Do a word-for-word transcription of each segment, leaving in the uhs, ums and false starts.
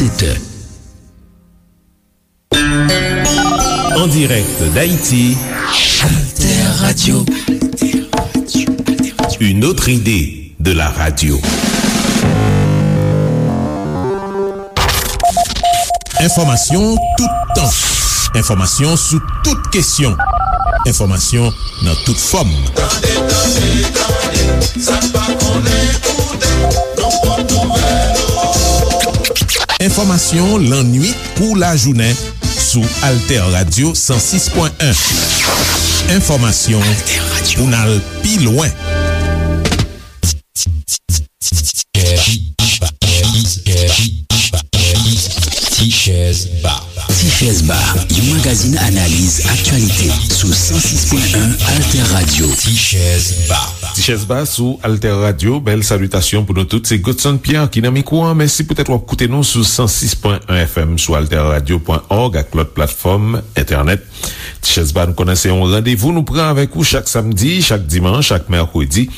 Alter. En direct d'Haïti, Alter Radio. Une autre idée de la radio. Enfòmasyon toutan. Enfòmasyon sou tout kesyon. Enfòmasyon nan tout fòm. Tande, tande, tande, sa n pa konnen koute, nou pot nouvèl. Enfòmasyon lannwit kou lajounen sou Alter Radio san sis pwen en. Enfòmasyon pou n al pi lwen. Tichèz Ba. Tichèz Ba, yon magazin analiz aktyalite sou san sis pwen en Alter Radio. Tichèz Ba. Tichèz Ba sou Alter Radio. Bèl salitasyon pou nou tout. Se Godson Pierre ki nan mikwo a. Mèsi poutèt w ap koute nou sou san sis pwen en F M, sou alter radio pwen org ak lòt platfòm entènèt. Tichèz Ba, nou konnen se yon randevou nou pran avèk ou chak samdi, chak dimanch, chak mèkredi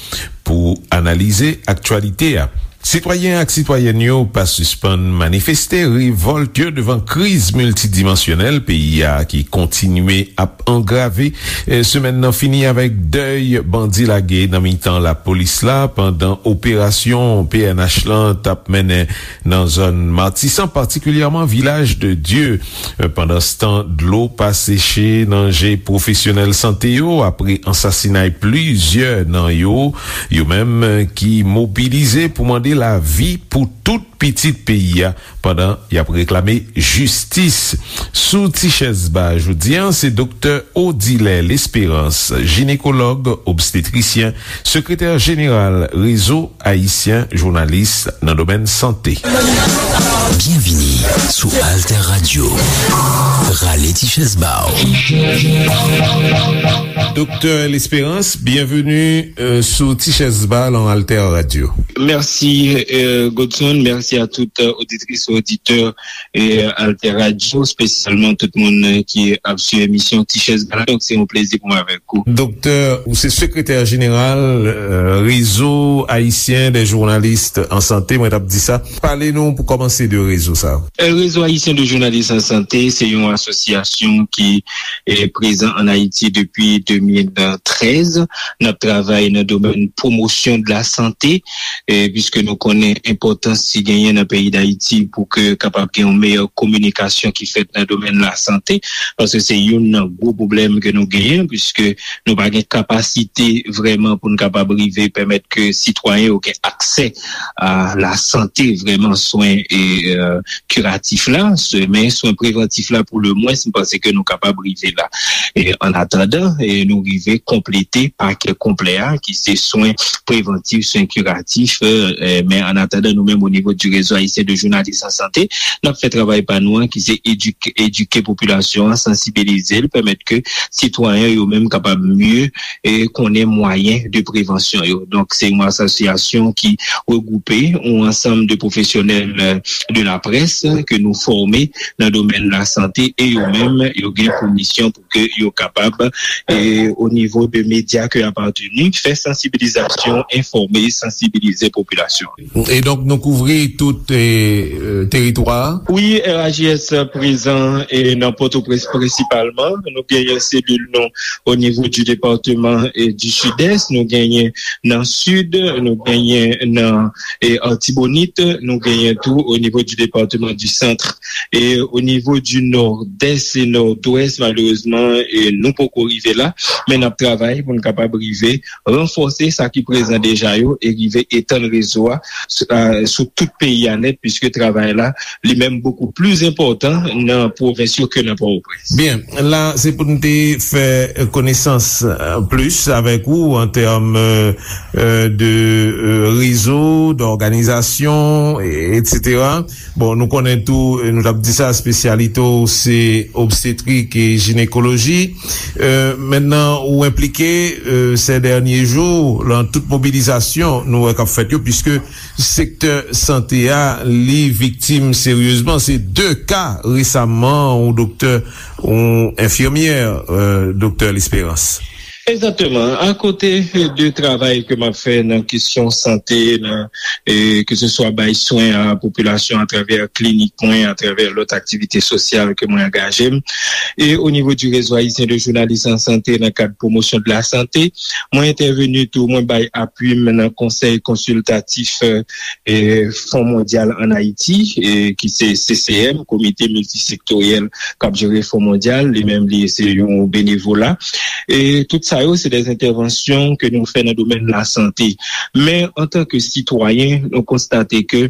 pou analize aktyalite a. Sitwayen ak sitwayèn yo pa sispann manifeste revòlt yo devan kriz miltidimansyonèl peyi a ki kontinye ap angrave. E, semèn nan fini avèk dèy bandi lage nan mitan lapolis la pandan operasyon P N H lan t ap mennen nan zòn Matisan, patikilyèman Vilaj de Dye. Pandanstan, dlo pa seche nan je pwofesyonèl sante yo apre ansasinay plizyè nan yo, yo menm ki mobilize pou mande lavi pou tout pitit peyi a pandan y ap reklame jistis. Sou Tichèz Ba jodi a, se Doktè Odilè Lesperans, jinekològ, obstetrisyen, sekretè jeneral Rezo Ayisyen Jounalis nan domèn sante. Byenvini sou Alter Radio. Rale ti chèz ba w. Doktè Lesperans, byenveni, euh, sou Ti Chèz Ba lan Alter Radio. Mèsi, euh, Godson. Mèsi a tout, euh, oditris e oditè, euh, Alter Radio, espesyalman tout moun, euh, ki ap swiv emisyon Ti Chèz Ba la. Donk, se yon plezi pou mwen avèk ou. Doktè, ou se sekretè jeneral, euh, Réseau Haïtien des Journalistes en Santé, mwen t ap di sa. Pale nou pou kòmanse de rezo sa. Euh, Réseau Haïtien de Journalistes en Santé, se yon asosyasyon ki, eh, prezan ann Ayiti depi de mil trèz. N ap travay nan domèn pwomosyon de la sante, eh, piske nou konnen enpòtans ki genyen nan peyi Dayiti pou ke kapab gen yon meyè kominikasyon ki fèt nan domèn lasante, paske se youn nan gwo pwoblèm ke nou genyen, piske nou pa gen kapasite vrèman pou n kapab rive pèmèt ke sitwayen yo gen aksè a lasante, vrèman swen e, euh, kiratif la, se, men swen prevantif la pou le mwens, m panse ke nou kapab rive la. E an atandan, e nou rive konplete pakè konplè a, ki se swen prevantif, swen kiratif, euh, euh, men an atandan, nou menm, o nivo du Réseau Haïtien de Journalistes en Santé, n ap fè travay pa nou an, ki se edike, edike popilasyon an, sansibilize l, pèmèt ke sitwayen yo menm kapab mye, e konnen mwayen de prevansyon yo. Donk, se yon asosyasyon ki regwoupe yon ansanm de pwofesyonèl, euh, de la presse ke nou fòme nan domèn lasante e yo menm, yo gen pou misyon pou ke yo kapab, e o nivo de medya ke y apateni, fè sansibilizasyon, enfòme, sansibilize popilasyon. E donk, nou kouvri tout, e, e, teritwa a? Wi, R H J S prezan, e, nan Pòtoprens prensipalman. Nou genyen selil nou o nivo du département, e, du Sud-Est, nou genyen nan Sid, nou genyen nan, e, Artibonit, nou genyen tou o nivo du département du Centre. E o nivo du Nord-Est e Nord-Ouest, malerezman, e, nou poko rive la, men n ap travay pou n kapab rive ranfòse sa ki prezan deja yo e rive etann rezo a sou, a, sou tout peyi a nèt, piske travay la, li menm, bokou pli enpòtan nan pwovens yo ke nan Pòtoprens. Byen, la, se pou n te fè konesans, euh, plis avèk ou an tèm, euh, euh, de, euh, rezo, dòganizasyon, e, etsetera. Bon, nou konnen tou, e, nou t ap di sa, espesyalite w se obstetrik e jinekoloji. Euh, mentnan, ou enplike, euh, ces derniers jours, lan tout mobilizasyon nou wè k ap fèt yo, piske sektè sante a, li viktim seryezman. Se de ka resaman, yon doktè, yon enfimyè, euh, doktè Lesperans. Egzakteman. Akote de travay ke m ap fè nan kesyon sante, nan, e, ke se swa bay swen a popilasyon atravè klinik mwen, atravè lòt aktivite sosyal ke mwen angaje m, e o nivo di Réseau Haïtien de Journalistes en Santé, nan kad Promotion de la Santé, mwen entèveni tou, mwen bay apui m nan Konsèy Konsiltatif, e, Fon Mondyal ann Ayiti, e, ki se C C M, Komite Miltisektoryèl k ap jere Fon Mondyal, li menm li se yon benevola. E tout sa yo, se de entèvansyon ke nou fè nan domèn lasante. Men, antanke sitwayen, nou konstate ke,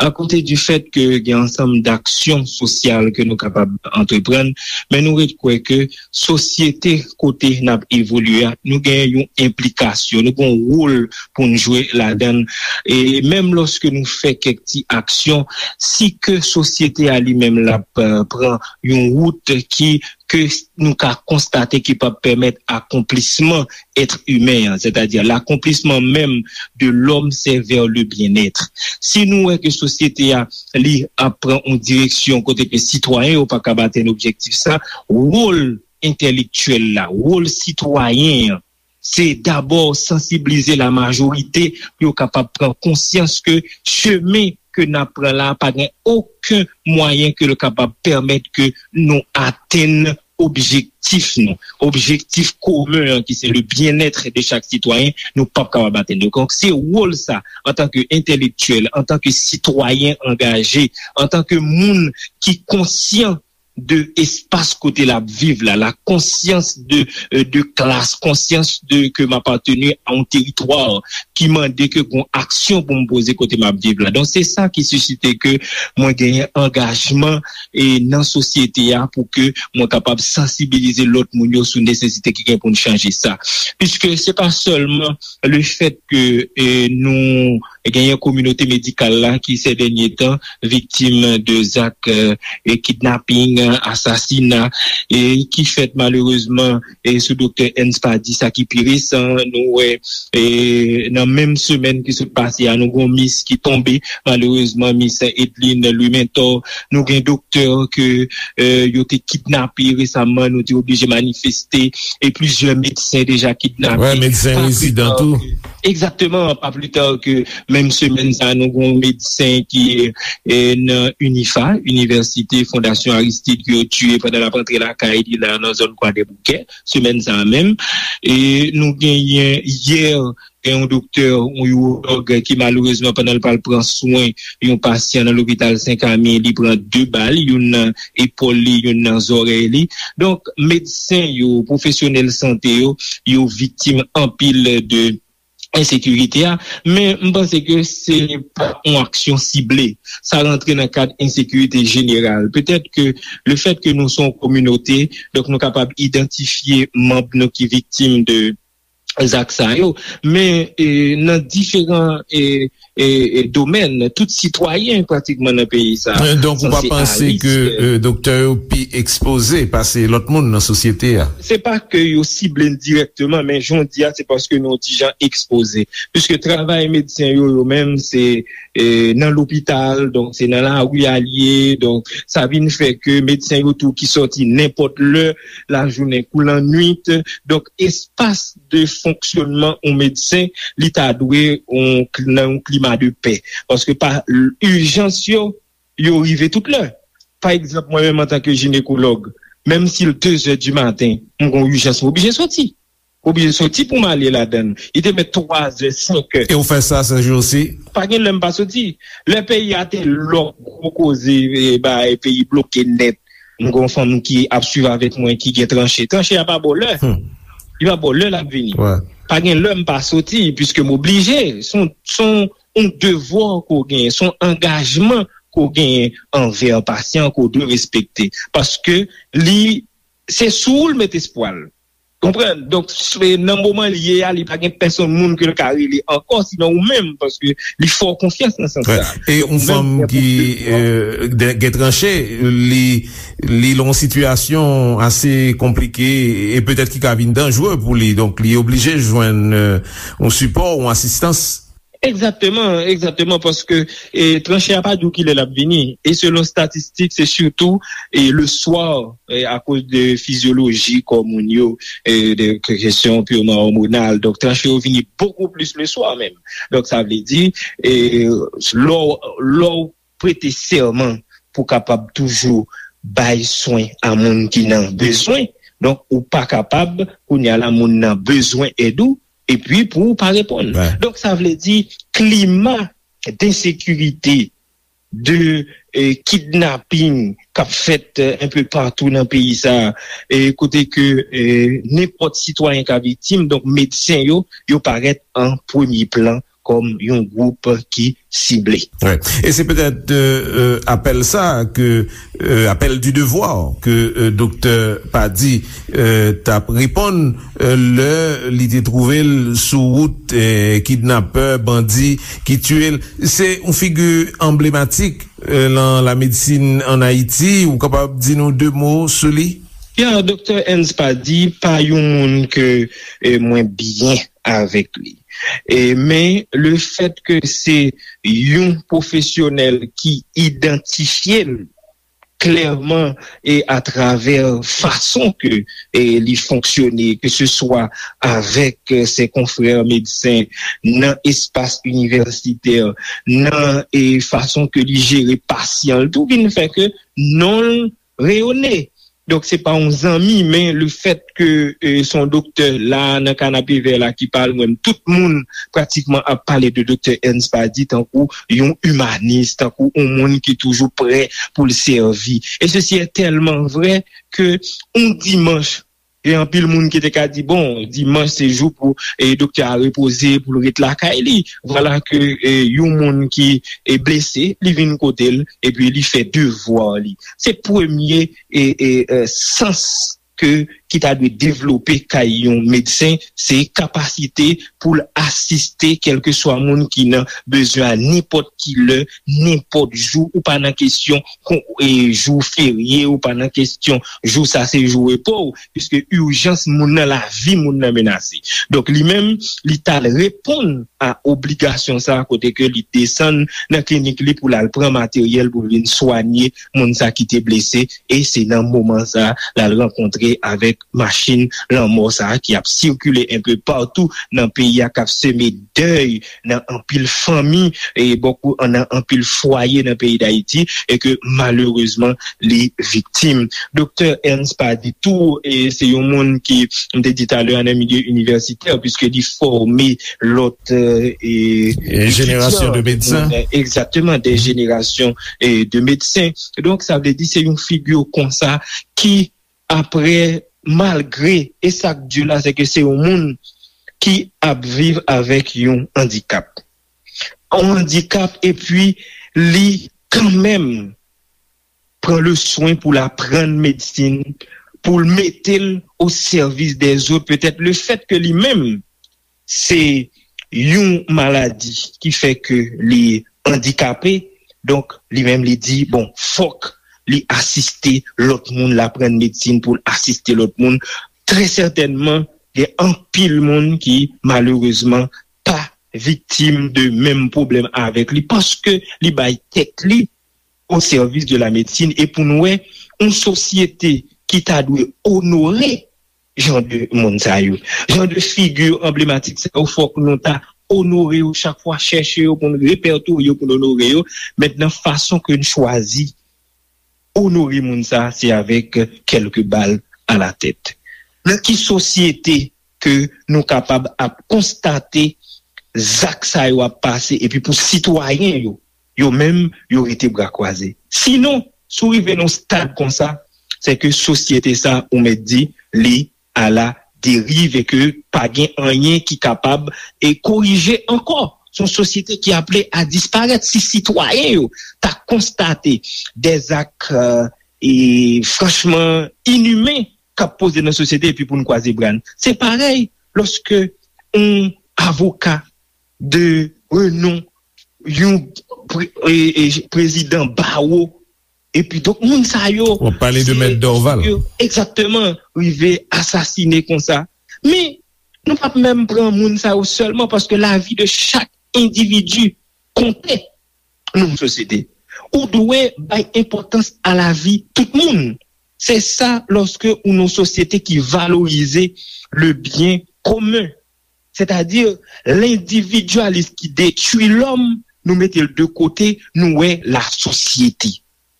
akote di fèt ke gen ansanm daksyon sosyal ke nou kapab antreprann, men nou ret kwè ke sosyete kote n ap evolye a, nou gen yon enplikasyon, nou gen yon wòl pou n jwe ladan l. E menm lòske nou fè kèk ti aksyon, si ke sosyete a li menm l ap, eh, pran yon wout ki, ke nou ka konstate ki p ap pèmèt akonplisman èt imen an, sètadi l'accomplissement même de l'homme, c'est vers le bien-être. Si nou wè ke sosyete a, li ap pran yon direksyon kote ke sitwayen yo pa ka atenn objektif sa, wòl entèlektyèl la, wòl sitwayen an, se dabò sansiblize lamajorite pou yo kapab pran konsyans ke chemen ke n ap pran la pa gen okenn mwayen ke l kapab pèmèt ke nou atenn objektif nou, objektif komen an ki se le bien-être de chaque citoyen, nou p ap kapab atenn li. Donk, se wòl sa, antanke entèlektyèl, antanke sitwayen angaje, antanke moun ki konsyan de espas kote l ap viv la, la konsyans de, euh, de klas, konsyans de ke m apateni a yon teritwa ki mande ke gon aksyon pou m poze kote m ap viv la. Donk, se sa ki sisite ke mwen genyen angajman e nan sosyete a pou ke mwen kapab sansibilize lòt moun yo sou nesesite ki gen pou n chanje sa. Piske se pa sèlman le fèt ke, e, nou genyen kominote medikal la ki, sè dènye tan, viktim de zak, e, e kidnaping, asasina, e ki fèt malerezman, e sou doktè Ernst Pady, sa ki pi resan, nou wè, e nan menm semèn ki sot pase a, nou gon mis ki tonbe, malerezman, mis Edline Louis Mentor, nou gen doktè ke, e, yo te kidnape resaman, nou te oblije manifeste, e plizyè medsen deja kidnape. Wè, medsen rezidan tou. Egzakteman, pa pli ta ke menm semèn sa, nou gon medsen ki, e, nan UNIFA, Inivèsite Fondasyon Aristide, ke yo tiye pandan l ap rantre lakay li la nan zòn Kwadèboukè, semèn sa a menm. E nou genyen yè, gen yon doktè, yon iwològ ki malerezman pandan l pral pran swen yon pasyan nan lopital Sen Kami, li pran de bal, youn nan epòl li, youn nan zòrèy li. Donk, medsen yo, pwofesyonèl sante yo, yo viktim anpil de ensekirite a, men m panse ke se pa yon aksyon sible. Sa rantre nan kad ensekirite jeneral. Petèt ke le fèt ke nou se yon kominote, donk nou kapab idantifye manm nou ki viktim de zak sa yo, men, e, nan diferan, e, e, e, domèn, tout sitwayen pratikman nan peyi sa a. E, donk, ou pa sanse panse ke, e, doktè yo pi ekspoze pase lòt moun nan sosyete a? Se pa ke yo sible n dirèkteman, men jan w di a, se paske nou yon ti jan ekspoze. Piske travay medsen yo, yo menm, se, e, nan lopital, donk se nan lari a l ye, donk sa vin fè ke medsen yo tou ki sòti nenpòt lè, lajounen kou lannwit, donk espas de fonksyònman yon medsen, li ta dwe yon, nan yon klima de pè. Paske pa ijans yo, yo rive tout lè. Pa egzanp, mwen menm antanke jinekològ, menm si l de zè di maten, m gon ijans, m oblije soti. M oblije soti pou m ale ladan l. Li te mèt twa zè, senk è. E w fè sa, Serge, osi? Pa gen lè m pa soti. Lè peyi a te lòk, gwo koze, e, bay peyi bloke nèt. M gon fanm ki ap swiv avèk mwen, ki gen tranche. Tranche a pa ba w lè. Hmm. Li pa ba w lè l ap vini. Wè. Pa gen lè m pa soti, piske m oblije. Se yon, se yon, yon devwa ke w genyen, se yon angajman ke w genyen anvè pasyan ke w dwe respekte. Paske li, se sou ou l met espwa l. Konprann? Donk, s-, nan moman l ye a, li pa gen pèsonn moun ke l ka rele ankò, sinon ou menm, paske li fè w konfyans nan sans sa. Wè. E yon fanm ki, e, de-, gen tranche, li, li nan yon sitiyasyon ase konplike e petèt ki ka vin danjere pou li. Donk, li oblije jwenn, e, yon sipò, yon asistans. Egzakteman, egzakteman, paske e, tranche a pa di w kilè l ap vini. E selon statistik, se sitou e, le swa, e, akoz de fizyoloji kò moun yo, e, de kesyon pirman òmonal. Donk, tranche yo vini bokou plis le swa menm. Donk, sa vle di, e, lè w lè w prete sèman pou w kapab toujou bay swen a moun ki nan bezwen, donk, ou pa kapab, kounye a la, moun nan bezwen èd ou, epi pou w pa reponn. Donk, sa vle di, klima densekirite, de e, kidnaping k ap fèt e, enpe patou nan peyi sa a, e, kote ke e, nenpòt sitwayen ka viktim, donk medsen yo, yo parèt an premye plan kòm yon gwoup ki sible. Wi. E se petèt e, e, apèl sa a ke, e, apèl du devoir ke e, doktè Pady e, t ap reponn e, lè li te twouve l sou wout e, kidnapè, bandi ki tiye l. Se yon figi anblematik e, nan lamedsin ann Ayiti. Ou kapab di nou de mo sou li? Ya, doktè Ernst Pady pa yon moun ke e, mwen byen avèk li. E, men le fèt ke se yon pwofesyonèl ki idantifye l klèman e atravè fason ke e, li fonksyone, ke se swa avèk e, se konfrè medsen nan espas inivèsitè, nan e, fason ke li jere pasyan l tou, vin fè ke non l reyone. Donk, se pa yon zanmi, men le fèt ke e, se yon doktè la, nan kanapevè la, ki pale, mwen, tout moun pratikman ap pale de doktè Ernst Pady tankou yon imanis, tankou yon moun ki toujou prè pou l sèvi. E sesi e tèlman vrè ke yon dimanch, gen anpil moun ki te ka di, bon, dimanch se jou pou e, doktè a repoze, pou l ret lakay li. Vwala ke e, yon moun ki e, blese, li vin kote l, epi li fè devwa li. Se premye e, e, e, sans ke, ki ta dwe devlope kay yon medsen, se kapasite pou l asiste kèlkeswa moun ki nan bezwen a nenpòt ki lè, nenpòt jou, ou pa nan kesyon kon, e, jou ferye, ou pa nan kesyon jou sa se jou repo w, piske ijans moun nan, lavi moun nan menase. Donk, li menm, li t al reponn a obligasyon sa a, kote ke li desann nan klinik li pou l al pran materyèl pou l vin swanye moun sa ki te blese, e se nan moman sa a l al rankontre avèk machin lanmò sa a ki ap sikile enpe patou nan peyi a, k ap seme dèy nan anpil fanmi, e bòkou nan anpil fwaye nan peyi Dayiti, e ke malerezman li viktim. Doktè Ernst Pady tou, e se yon moun ki, m te di talè a, nan milye inivèsitè, piske li fòme lòt, e, e, jenerasyon de medsen. Egzakteman, de jenerasyon e, de medsen. Donk, sa vle di se yon figi konsa ki, apre, malgre, e sa k di la, se ke se yon moun ki ap viv avèk yon andikap. Yon andikap, epi li kanmenm pran le swen pou l aprann medsin, pou l mete l o sèvis dèzòt. Petèt le fèt ke li menm se yon maladi ki fè ke li andikape, donk li menm li di, bon, fòk li asiste lòt moun, l aprann medsin pou l asiste lòt moun. Trè sètènman, gen anpil moun ki, malerezman, pa viktim de menm pwoblèm avèk li, paske li bay tèt li o sèvis de la medsin. E pou nou wè, yon sosyete ki ta dwe onore jan de moun sa yo, jan de figi anblematik sa yo, fòk nou ta onore yo chak fwa, chèche yo pou n repètorye yo, pou n onore yo. Mentnan, fason ke n chwazi onore moun sa, se avèk kèlke bal a la tèt. Nan ki sosyete ke nou kapab ap konstate zak sa yo ap pase, epi pou sitwayen yo, yo menm, yo rete bra kwaze? Sinon, si w rive nan yon stad konsa, se ke sosyete sa, ou mèt di, li a la deriv e ke pa gen anyen ki kapab e korije ankò. Se yon sosyete ki aple a disparèt. Si sitwayen yo ta konstate dèzak, e, franchman inimen k ap poze nan sosyete, epi pou n kwaze bra n. Se parèy lòske yon avoka de renon, yon pre- e- e- prezidan bawo, epi donk moun sa yo, w ap pale de Mèt Dorval, egzakteman, rive asasine konsa. Men nou p ap menm pran moun sa yo sèlman, paske lavi de chak endividi konte nan yon sosyete. Ou dwe bay enpòtans a lavi tout moun. Se sa lòske ou nan yon sosyete ki valorize le bien commun. Sètadi, lendividyalis ki detwi lòm, nou mete l de kote, nou wè lasosyete.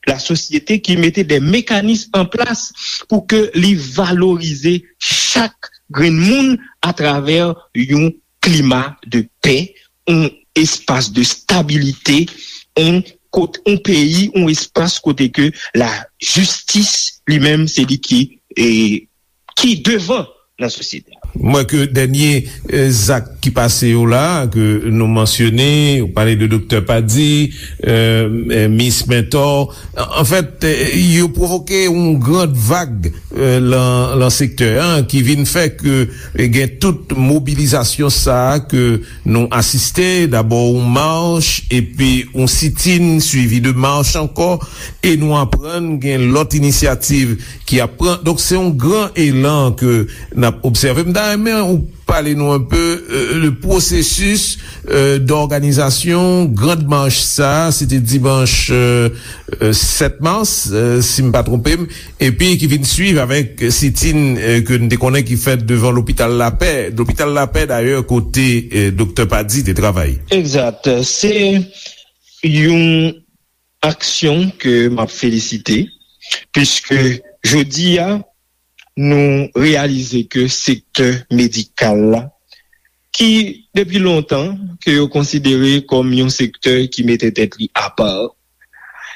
Lasosyete ki mete de mekanis an plas pou ke li valorize chak grenn moun atravè yon klima de pè, yon espas de stabilite, yon kot, yon peyi, yon espas kote ke lajistis li menm se li ki, e, ki devan nan sosyete a. M wè ke dènye, e, zak ki pase yo la, ke nou mansyone, ou pale de Doktè Pady, e, e, Miss Mentor, an, anfèt, e, yo pwovoke yon grand vag, e, lan, lan sektè an, ki vin fè ke, e, gen tout mobilizasyon sa a ke nou asiste, dabò yon mach, epi yon sitin, swivi de mach ankò, e nou aprann gen lòt inisyativ ki ap pran. Donk, se yon gran elan ke n ap obsève. M ta renmen ou pale nou enpe, e, de pwosesis, e, dòganizasyon grand mach sa, se te dimanch, e, e, sèt mas, e, si m pa twonpe m, epi ki vin swiv avèk sitin, e, ke n te konnen ki fèt devan lopital Lapè. Lopital Lapè, dayè, kote, e, Doktè Pady te travay. Egzat. Se yon aksyon ke m ap felisite, piske jodi a, nou reyalize ke sektè medikal la, ki depi lontan ke yo konsidere kòm yon sektè ki mete tèt li apa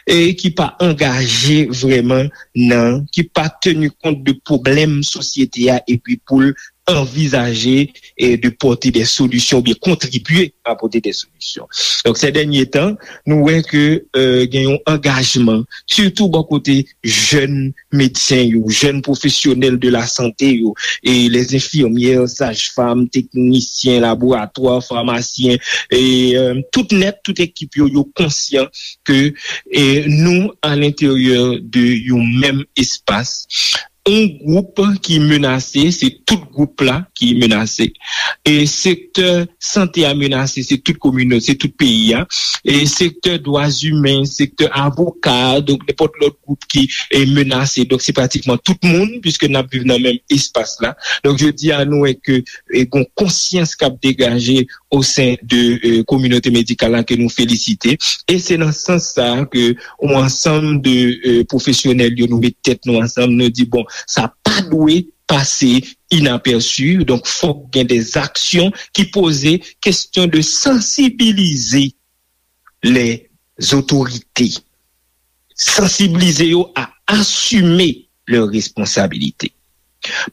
e ki pa angaje vrèman nan, ki pa teni kont de pwoblèm sosyete a, epi pou l anvizaje e de pòte de solisyon oubyen kontribye a pòte de solisyon. Donk, se dènye tan, nou wè ke, e, gen yon angajman, sitou bò kote jèn medsen yo, jèn pwofesyonèl de la sante yo, e les infirmières, saj-fam, teknisyen laboratwa, famasyen, e, e, tout nèt, tout ekip yo, yo konsyan ke, e, nou, a lenteryè de yon menm espas, yon gwoup ki menase, se tout gwoup la ki menase. E sektè sante a menase, se tout kominote, se tout peyi a. E sektè dwa imen, sektè avoka, donk nenpòt lòt gwoup ki, e, menase. Donk se pratikman tout moun, piske n ap viv nan menm espas la. Donk jodi a, nou wè ke, e, gon konsyans k ap degaje o sen de, e, kominote medikal la ke nou felisite. E se nan sans sa a ke yon ansanm de, e, pwofesyonèl yo, nou met tèt nou ansanm, nou di, bon, sa pa dwe pase inapèsi, donk fòk gen de aksyon ki poze kesyon de sansibilize les autorités, sansibilize yo a asime lè responsabilite.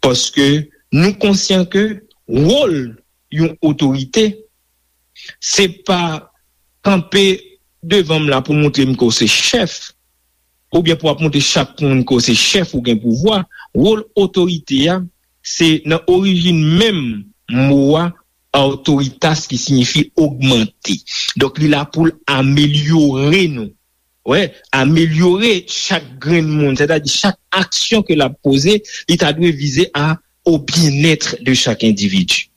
Paske nou konsyan ke wòl yon otorite, se pa kanpe devan m la pou montre m ke w se chèf, oubyen pou w ap montre chak moun ke w se chèf, ou gen pouvwa. Wòl otorite a, se nan orijin menm mo a, autoritas, ki siyifi ogmante. Donk, li la pou l amelyore nou. Wè, amelyore chak grenn moun, sètadi chak aksyon ke l ap poze, li ta dwe vize a au bien-être de chaque individu.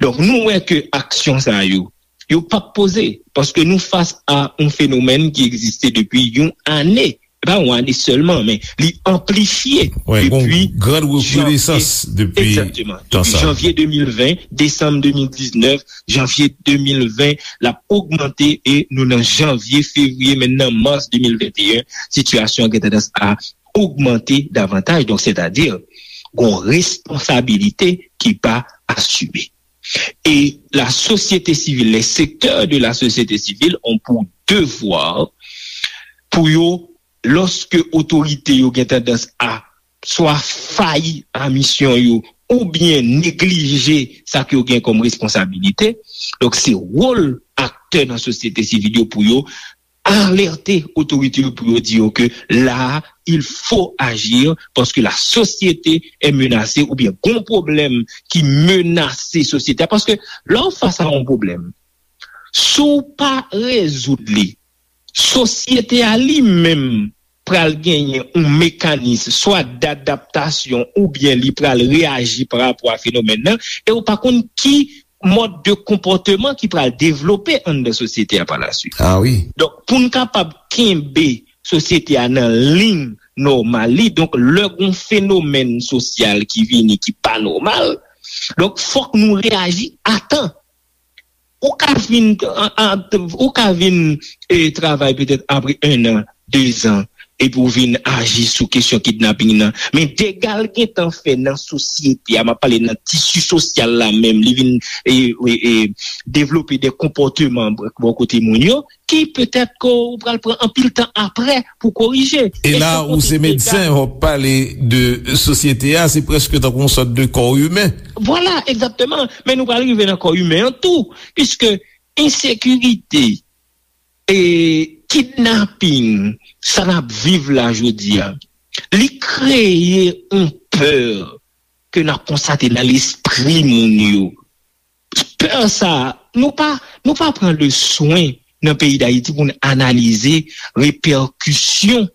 Donk, nou wè ke aksyon sa yo, yo p ap poze, paske nou fas a yon fenomèn ki egziste depi yon ane. E pa yon ane sèlman, men li anplifye Wè, gon depi gran janvye, rekonesans depi egzakteman, tan depi sa. Janvye de mil ven, desanm de mil diznèf, janvye de mil ven, l ap ogmante e nou nan janvye, fevriye, menm nan mas de mil venteyen, sitiyasyon an gen tandans a ogmante davantaj. Donk, sètadi, gon responsabilite ki pa asime. E la société civile, les secteurs de la société civile ont pour devoir pou yo, lòske otorite yo gen tandans a swa fayi a misyon yo oubyen neglije sa ke yo gen kòm responsabilite. Donk, se wòl aktè nan sosyete sivil yo pou yo alète otorite yo, pou yo di yo ke la, il faut agir parce que la société est menacée, oubyen gon pwoblèm ki menase sosyete a. Paske lè w fas a yon pwoblèm, si w pa rezoud li, sosyete a li menm pral genyen yon mekanis swa dadaptasyon oubyen li pral reyaji pa rapò a fenomèn nan, e w pa konn ki mòd de konpòteman ki pral devlope anndan sosyete a pa la swit. Ah wi. Donk, pou n kapab kenbe sosyete a nan liy nòmal li, donk, lè gon fenomèn sosyal ki vini ki pa nòmal, donk, fòk nou reyaji a tan. Ou ka vin, an, an, ou ka vin e, travay petèt apre en an, de zan, epi w vin aji sou kesyon kidnaping nan. Men dega l gentan fè nan sosyete a, m ap pale nan tisi sosyal la menm, li vin e, e, e, devlope de konpòteman bò kote moun yo, ki petèt ke w pral pran anpil tan apre pou korije. E la, ou se medsen, w ap pale de sosyete a, se prèske tankou yon sòt de kò imen. Vwala, egzakteman. Men nou pral rive nan kò imen an tou, piske ensekirite e kidnaping, sa n ap viv la jodi a, li kreye yon pè ke n ap konstate nan lespri moun yo. Pè sa, nou pa, nou pa pran le swen nan peyi Dayiti pou n analize repèkisyon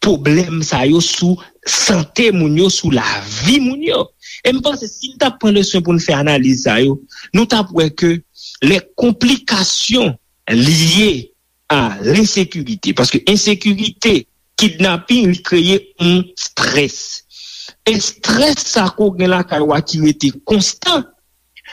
pwoblèm sa yo sou sante moun yo, sou lavi moun yo. E m panse si n t ap pran le swen pou n fè analiz sa yo, nou t ap wè ke les complications liées à l'insécurité, paske ensekirite, kidnaping, li kreye yon strès. E strès sa ke w gen lakay ou a ki rete konstan,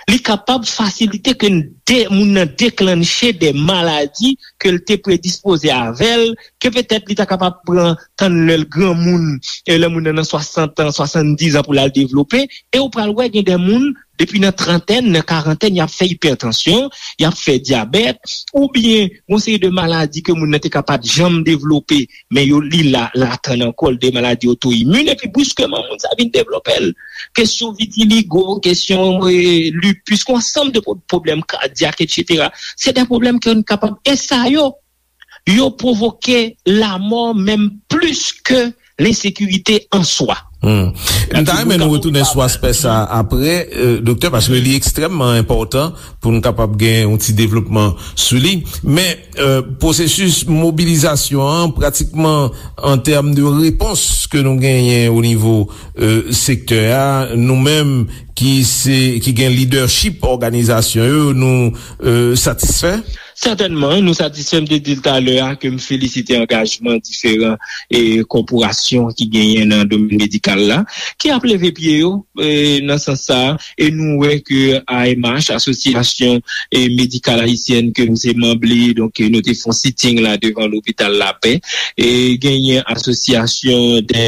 li kapab fasilite ke de, moun nan deklanche de maladi ke l te predispoze avè l, ke petèt li ta kapab pran tann lè l granmoun, e lè moun nan nan swasant an, swasanndizan pou l al devlope, e ou pral wè gen de moun, depi nan trantèn, nan karantèn, y ap fè ipètansyon, y ap fè dyabèt, oubyen yon seri de maladi ke moun nan te ka pa t janm devlope, men yo li la, latann ankò, de maladi oto imin, epi briskman, moun sa vin devlope l. Kesyon vitiligo, kesyon e, lupus, yon ansanm de pwoblèm kadyak, etsetera. Se de pwoblèm ke nou kapab, e sa yo, yo pwovoke lanmò menm plis ke lensekirite an swa. Hmm. M ta renmen nou retounen sou aspè sa apre, euh, doktè, paske li ekstrèmman enpòtan pou nou kapab gen yon ti devlopman sou li. Men, euh, pwosesis mobilizasyon an, pratikman an tèm de repons ke nou genyen o nivo, euh, sektè a, nou menm ki se, ki gen lidèchip òganizasyon yo, nou, euh, satisfè? Sètènman, nou satisfè. M te di l talè a ke m felisite angajman diferan e kòporasyon ki genyen nan domèn medikal la, ki ap leve pye yo, e, nan sans sa a, e nou wè ke A M H, Asosyasyon, e, Medikal Ayisyèn ke m se manm li, donk, e, nou te fè yon sitting la devan lopital Lapè, e genyen asosyasyon de,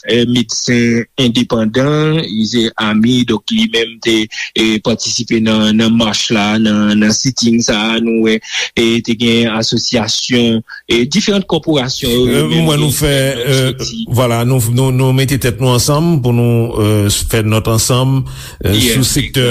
e, medsen endepandan, se ami, donk li menm te, e, patisipe nan, nan mach la, nan, nan sitting sa a, nou wè, e te gen asosyasyon, e diferan kòporasyon yo, yo menm, mwen nou fè, euh, vwala, nou, nou, nou mete tèt nou ansanm pou nou, euh, fè nòt ansanm, euh, sou sektè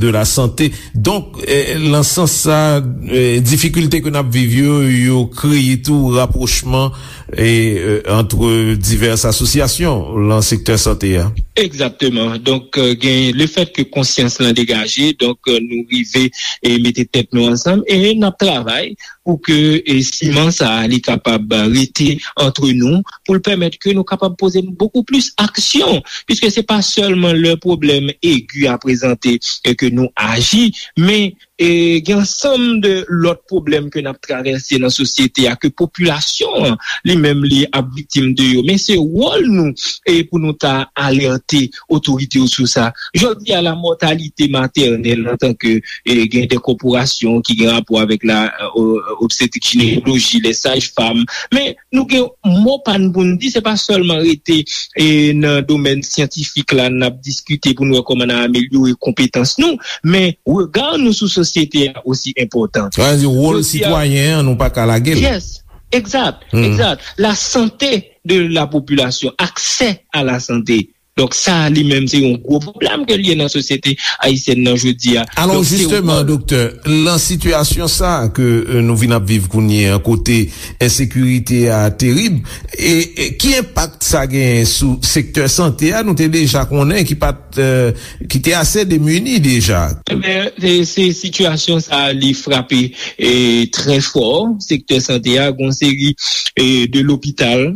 de la sante. Donk, euh, nan sans sa, euh, difikilte ke n ap viv yo, yo kreye tou rapwochman e, euh, ant divès asosyasyon lan sektè sante a. Egzakteman. Donk, euh, gen le fèt ke konsyans lan degaje, donk, euh, nou rive e mete tèt nou ansanm e n ap travay pou ke, e, siman sa a, li kapab rete ant nou, pou l pèmèt ke nou kapab poze bokou plis aksyon, piske se pa sèlman lè pwoblèm egi a prezante e ke nou aji, men e gen ansanm de lòt pwoblèm ke n ap travèse nan sosyete a, ke popilasyon an li menm li ap viktim de yo. Men se wòl nou e pou nou ta alète otorite yo sou sa. Jodi a, la mòtalite matènèl antanke e gen de kòporasyon ki gen rapò avèk la, e, obstetrik jinekoloji, les sages-femmes, men nou gen mo pa n pou n di, se pa sèlman rete, e, nan domèn syantifik la, n ap diskite pou n wè kòman n a amelyore konpetans nou, men rega nou sou sosyete a osi enpòtan. Sa vle di, wòl sitwayen an, nou pa ka lage l. Yes, egzat, egzat. La santé de la population, accès à la santé. Donk, sa a li menm, se yon gwo pwoblèm ke l ye nan sosyete ayisyèn nan jodi a. Alò, jisteman, doktè, lan sitiyasyon sa a ke, e, nou vin ap viv kounye a, kote ensekirite a terib, e, e ki enpak sa genyen sou sektè sante a? Nou te deja konnen ki pa t, e, ki te ase demini deja. Ebyen, se, se sitiyasyon sa a, li frape, e, trè fò sektè sante a, gon seri, e, de lopital,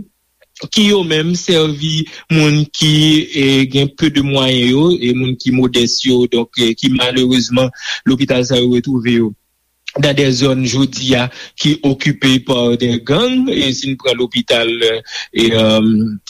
ki yo menm sèvi moun ki, e, gen peu de mwayen yo, e moun ki modès yo, donk, e, ki malerezman lopital sa yo retwouve yo dans des zones jodi a ki okipe pa de gang, e si n pran lopital, e, e,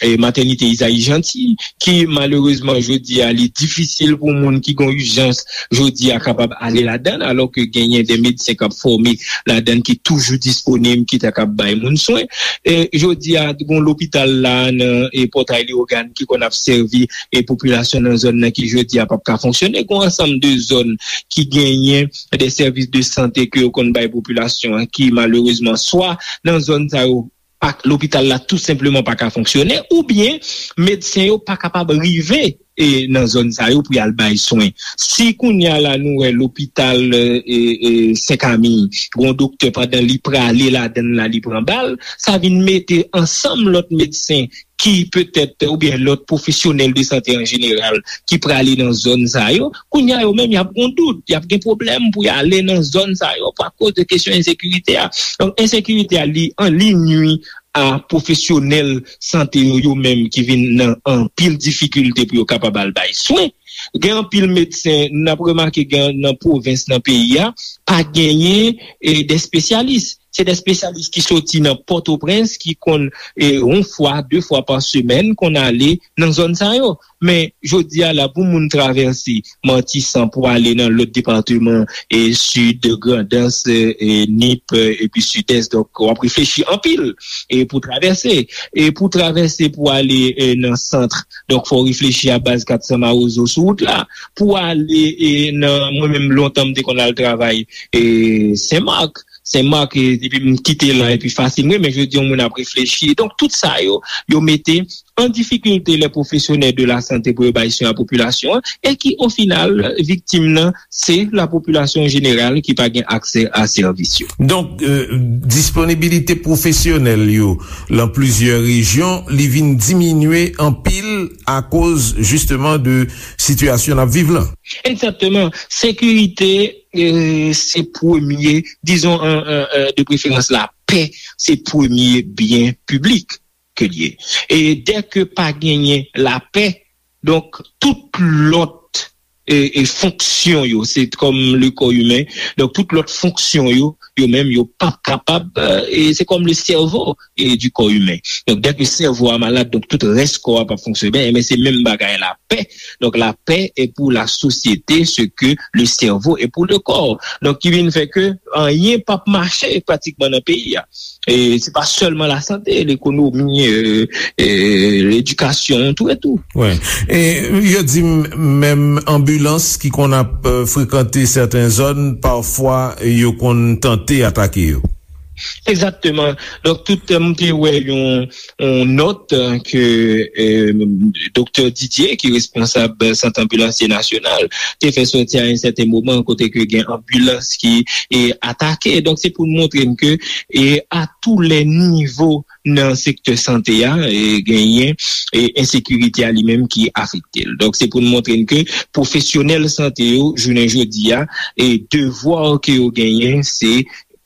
e matènite Izayi Janti, ki malerezman jodi a li difisil pou moun ki gen ijans jodi a kapab ale ladan, alò ke genyen de medsen k ap fòme ladan ki toujou disponib, ki ta kab bay moun swen. E jodi a, gon lopital la nan, e, Pòtay Leyogàn ki konn ap sèvi, e, popilasyon nan zòn nan ki jodi a p ap ka fonksyone. Gon ansanm de zòn ki genyen de sèvis de sante ke yo konn bay popilasyon an ki malerezman swa nan zòn sa yo pa, lopital la tou senpleman pa ka fonksyone, oubyen medsen yo pa kapab rive, e, nan zòn sa yo pou y al bay swen. Si kounye a la nou wè lopital, e, e, Senkamil, gon doktè pandan li prale ladan l la li pran bal, sa vin mete ansanm lòt medsen ki petèt, oubyen lòt pwofesyonèl de sante an jeneral ki prale nan zòn sa yo, kounye a yo menm y ap gon dout, y ap gen pwoblèm pou y ale nan zòn sa yo pou akoz de kesyon ensekirite a. Donk, ensekirite a li an li nwi a pwofesyonèl sante yo, yo menm ki vin nan anpil difikilte pou yo kapab al bay swen. Gen anpil medsen, n ap remake gen nan pwovens nan peyi a, pa genyen, e, de espesyalis. Se de espesyalis ki soti nan Pòtoprens, ki konn, e, yon fwa, de fwa pa semèn, konn ale nan zòn sa yo. Men, jodi a la, pou moun travèse Matisan pou ale nan lòt depatman, e, Sid, Grandans, e, e, Nip, e, epi Sidès, donk, w ap reflechi anpil, e, pou travèse. E pou travèse pou ale, e, nan sant, donk, fò w reflechi a baz kat san Mawozo sou wout la. Pou ale, e, nan, mwen menm, lontan, m te konn al travay, e, Senmak. Senmak, e, depi m kite la, epi fasil, mwen, men jodi, yon moun ap reflechi. Donk, tout sa yo, yo mete an difikilte lè pwofesyonèl de la sante pou yo bay swen a popilasyon an, e ki, o final, viktim nan, se la popilasyon jeneral ki pa gen aksè a sèvis yo. Donk, e, disponibilite pwofesyonèl yo lan plizyè rejyon, li vin diminye anpil akoz, jisteman, de sitiyasyon n ap viv lan. Egzakteman. Sekirite, e, se premye, dizon, an, an, an, de preferans, lapè, se premye byen piblik ke l ye. E dèke pa genyen lapè, donk, tout lòt, e, e, fonksyon yo, se kòm le kò imen, donk, tout lòt fonksyon yo, yo menm, yo p ap kapab, e, e, se kòm le sèvo, e, du corps humain. Donk, dèke sèvo a malad, donk, tout rès kò a p ap fonksyone byen, men se menm bagay lapè. Donk, lapè est pour la société ce que le cerveau est pour le corps. Donk, ki vin fè ke anyen p ap mache pratikman nan peyi a. E se pa sèlman lasante, lekonomi, e, e, ledikasyon, tou e tou. Wi. E yo di m, menm anbilans ki konn ap, e, frekante sèten zòn, pafwa yo konn tante atake yo. Egzakteman. Donk, tout, e, m te wè yon, yon nòt, e, ke, e, Doktè Didier, ki responsab Sant Anbilansye Nasyonal, te fè sòti a yon sèten moman, kote ke gen anbilans ki, e, atake. Donk, se pou n montre n ke, e, a tou lè nivo nan sektè sante a, e, genyen, e, ensekirite a li menm ki afekte l. Donk, se pou n montre n ke pwofesyonèl sante yo, jounen jodi a, e, devwa ke yo genyen, se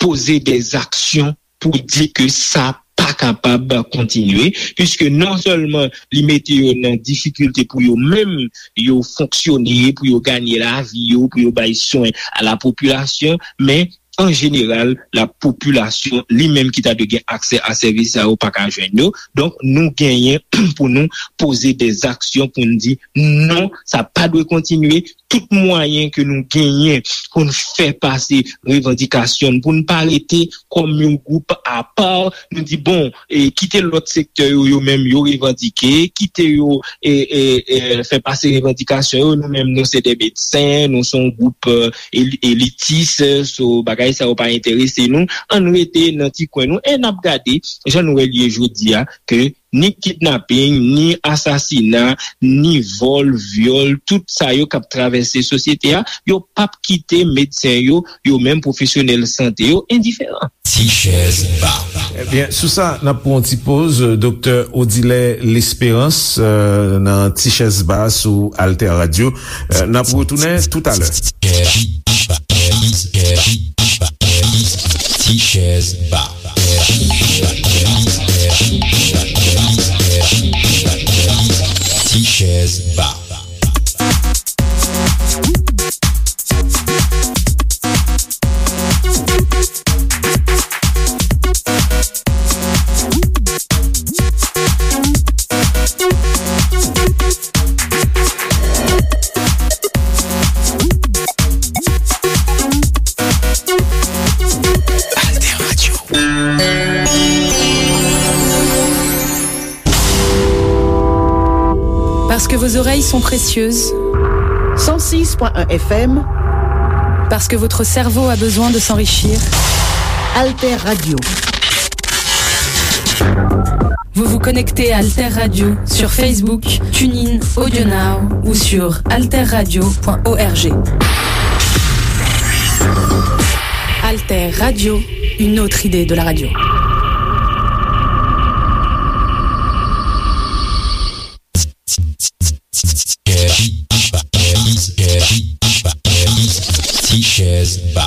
poze dèzaksyon pou di ke sa pa kapab kontinye, piske non sèlman li mete yo nan difikilte pou yo menm, yo fonksyone, pou yo ganye lavi yo, pou yo bay swen a la popilasyon, men an jeneral, la popilasyon li menm ki ta dwe gen aksè a sèvis sa yo pa ka jwenn yo. Donk, nou genyen pou nou poze dèzaksyon pou n di non, sa pa dwe kontinye. Tout mwayen ke nou genyen pou n fè pase revandikasyon n, pou n pa rete kòm yon gwoup apa, nou di, bon, e, kite lòt sektè yo, yo menm, yo revandike, kite yo, e, e, e, fè pase revandikasyon yo, nou menm, nou se de medsen, nou se yon gwoup, e, eli-, elitis, so bagay sa yo pa enterese nou, ann rete nan ti kwen nou, e n ap gade, jan nou wè l ye jodi a, ke ni kidnaping, ni asasina, ni vòl, vyòl, tout sa yo k ap travèse sosyete a, yo p ap kite medsen yo, yo menm pwofesyonèl sante yo, endiferan. Ti chèz ba. Ebyen, sou sa, n ap pran yon ti poz, Doktè Odilè Lesperans, e, nan Ti chèz ba sou Alter Radio. E, n ap retounen toutalè. Ti chèz ba. Ti chèz ba. Parce que vos oreilles sont précieuses. Cent six point un F M. Parce que votre cerveau a besoin de s'enrichir. Alter Radio. Vous vous connectez à Alter Radio sur Facebook, TuneIn, AudioNow ou sur alterradio point org. Alter Radio, une autre idée de la radio. Tichèz Ba.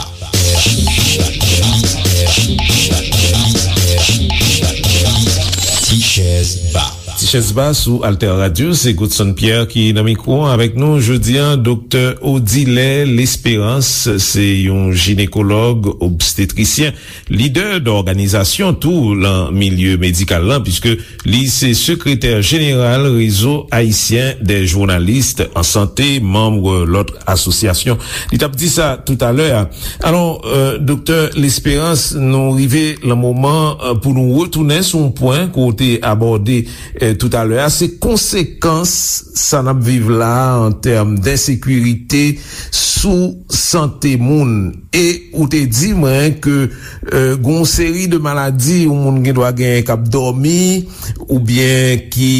Tichèz Ba. Tichèz Ba sou Alter Radio, se Godson Pierre ki nan mikwo an avèk nou jodi a, Doktè Odilè Lesperance, se yon jinekològ obstetrisyen, lidè dòganizasyon tou lan milye medikal lan, piske li se sekretè jeneral Rezo Ayisyen dè Jounalis an Sante, manm lòt asosyasyon. Li t ap di sa toutalè a. Alò, euh, Doktè Lesperance, nou rive lan moman, euh, pou nou retounen sou yon pwen ke w te abòde, euh, toutalè a. Se konsekans sa n ap viv la a an tèm densekirite sou sante moun. E ou te di mwen ke, euh, gen yon seri de maladi yon moun gen dwa genyen k ap dòmi, oubyen ki,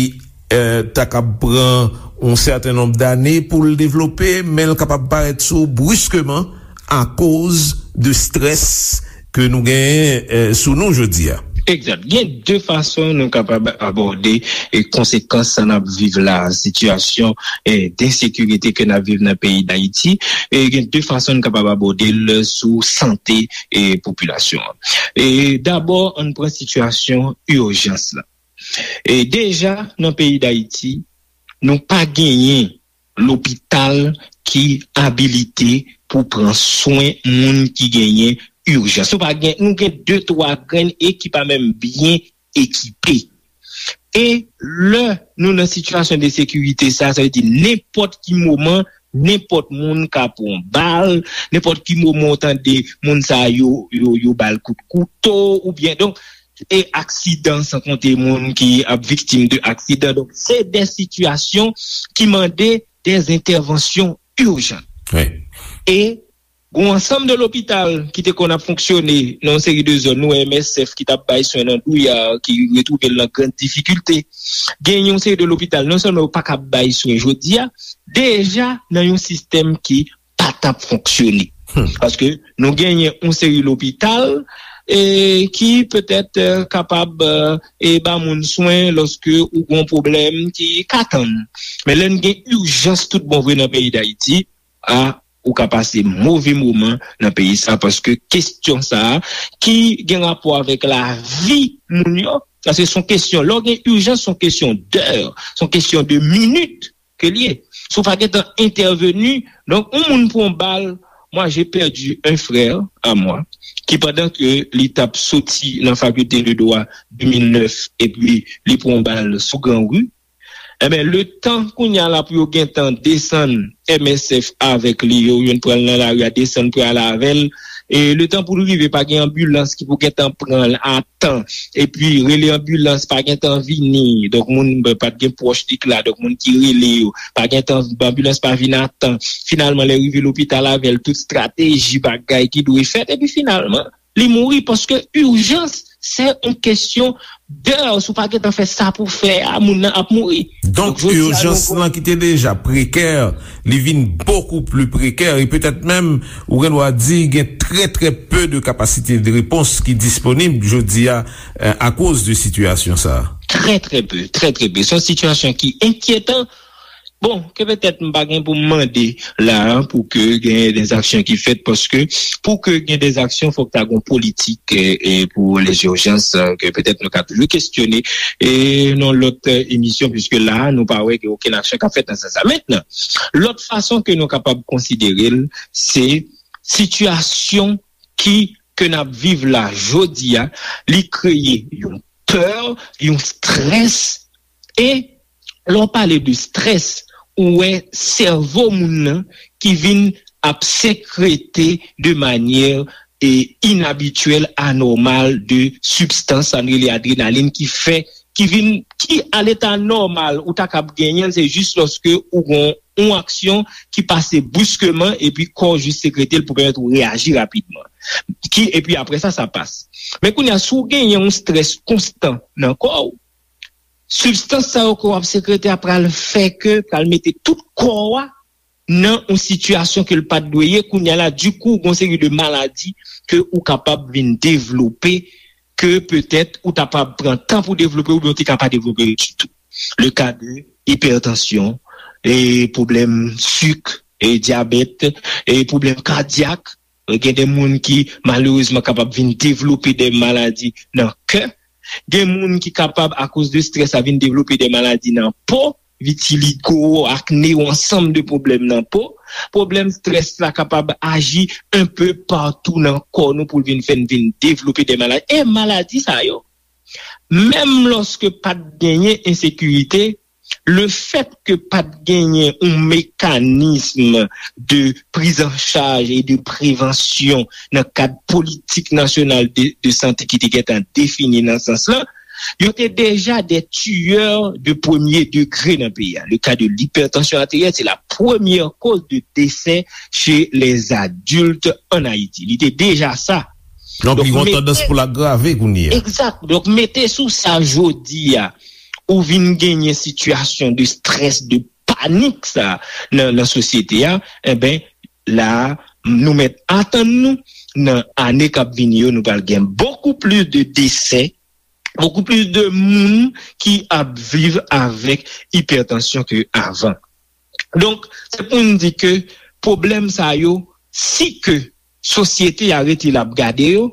euh, ta kab pran yon sèten nonb dane pou l devlope, men l kapab parèt sou w briskeman akoz de strès ke nou genyen, euh, sou nou jodi a. Egzat. Gen de fason nou kapab abòde, e, konsekans sa n ap viv la, sitiyasyon, e, densekirite ke n ap viv nan peyi Dayiti. E gen de fason n kapab abòde l sou sante, e, popilasyon an. E dabò, ann pran sitiyasyon ijans la. E deja, nan peyi Dayiti, nou pa genyen lopital ki abilite pou pran swen moun ki genyen ijans. Nou pa gen, nou gen de, twa grenn e ki pa menm byen ekipe. E lè nou nan sitiyasyon de sekirite sa, sa vle di nenpòt ki moman, nenpòt moun ka pran bal, nenpòt ki moman w tande moun sa yo, yo, yo ba l kout kouto, oubyen, donk, e aksidan, san konte moun ki ap viktim de aksidan. Donk, se de sitiyasyon ki mande de entèvansyon ijan. Wi. E gen yon ansanm de lopital ki te konn ap fonksyone nan yon seri de zòn, nou wè M S F ki t ap bay swen nan Douyar, ki retwouve l nan grann difikilte. Gen yon seri de lopital, non sèlman yo pa ka bay swen jodi a, deja nan yon sistèm ki pa t ap fonksyone. Hmm. Paske nou genyen yon seri lopital, e, ki petèt, e, kapab, e, e ba moun swen lòske ou gen yon pwoblèm ki ka tann. Men lè n gen ijans tout bon vre nan peyi Dayiti, a, ou ka pase move moman nan peyi sa, paske kesyon sa a, ki gen rapò avèk lavi moun yo, paske se yon kesyon, lè w gen ijans, se yon kesyon dè, se yon kesyon de minit ke l ye. Si w pa gentan entèveni, donk, yon moun pran bal, moi, j'ai perdu un frère à moi, ki pandan ke li t ap soti nan fakilte de dwa de mil nèf, epi li pran bal sou Gran Ri, enben, letan kounye a la pou yo gentan desann M S F avèk li, yo youn pran l nan lari a, desann pral avè l, e letan pou l rive, pa gen anbilans ki pou gentan pran l a tan, epi rele anbilans pa gentan vini, donk moun pa t gen pwòch li k la, donk moun ki rele yo, pa gentan, anbilans pa vin a tan, finalman lè rive lopital avè l, tout estrateji, bagay ki dwe fèt, epi finalman li mouri, paske ijans se yon kesyon dè, si w pa gentan fè sa pou fè a, moun nan ap mouri. Donk, ijans lan ki te deja prekè, li vin bokou pli prekè, e petèt menm, ou gen dwa di, gen trè, trè pe de kapasite de repons ki disponib jodi a, e, akoz de sitiyasyon sa a. Trè, trè pe, trè, trè pe. Se yon sitiyasyon ki enkyetan. Bon, ke petèt m pa gen pou m mande la a pou ke gen de aksyon ki fèt, paske pou ke gen de aksyon, fòk ta gen yon politik, e, e, pou lezijans, e, ke petèt nou ka toujou kesyone, e, nan lòt, e, emisyon, piske la a, nou pa wè gen okenn aksyon k ap fèt nan sans sa. Mentnan, lòt fason ke nou kapab konsidere l, se sitiyasyon ki, ke n ap viv la jodi a, li kreye yon pè, yon strès, e lè w pale de strès, ou wè sèvo moun nan ki vin ap sekrete de manyè, e, inabityèl, anòmal, de sibstans, sa n rele adrenalin, ki fè ki vin, ki a leta nòmal ou ta kab genyen l, se jis lòske ou gon yon aksyon ki pase briskeman epi kò w jis sekrete l pou pèmèt ou reyaji rapidman. Ki, epi apre sa, sa pas. Men kounye a, si w genyen yon strès konstan nan kò w, sibstans sa yo ke w ap sekrete a pral fè ke, pral mete tout kò w a nan yon sitiyasyon ke l pa t dwe ye. Kounye a la, dikou, gon seri de maladi ke ou kapab vin devlope, ke petèt ou ta pa pran tan pou devlope, oubyen ou te ka pa devlope ditou. Le ka de ipètansyon, e pwoblèm sik, e dyabèt, e pwoblèm kadyak. Gen de moun ki malerezman kapab vin devlope de maladi nan kè. Gen moun ki kapab, akoz de strès la, vin devlope de maladi nan po, vitiligo, akne, yon ansanm de pwoblèm nan po. Pwoblèm strès la kapab aji enpe patou nan kò nou pou l vin fè n vin devlope de maladi. E maladi sa yo, menm lòske pa t genyen ensekirite, le fèt ke pa t genyen yon mekanism de prizanchaj e de prevansyon nan kad politik nasyonal de, de sante ki te gentan defini nan sans lan, yo te deja de tiyè de premye degre nan peyi a. Le ka de lipètansyon ateryèl, se la premyè koz de desè chez les adultes en Ayiti. Li te deja sa. Donk, li gen yon tandans pou l agrave kounye a. Egzak. Donk, mete sou sa jodi a, ou vin genyen sitiyasyon de strès, de panik sa nan, nan sosyete a, enben, la, nou mèt atann nou, nan ane k ap vini yo, nou pral gen bokou plis de desè, bokou plis de moun ki ap viv avèk ipètansyon ke avan. Donk, se pou n di ke pwoblèm sa yo, si ke sosyete a rete l ap gade yo,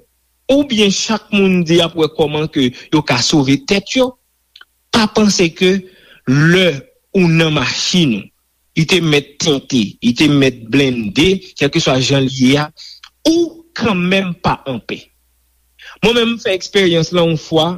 oubyen chak moun di ap wè kòman ke yo ka sove tèt yo, pa panse ke lè ou nan machin ou, li te mèt tente, li te mèt blende, kèlkeswa jan l ye a, ou kanmenm pa anpè. Mwen menm, m fè eksperyans lan yon fwa,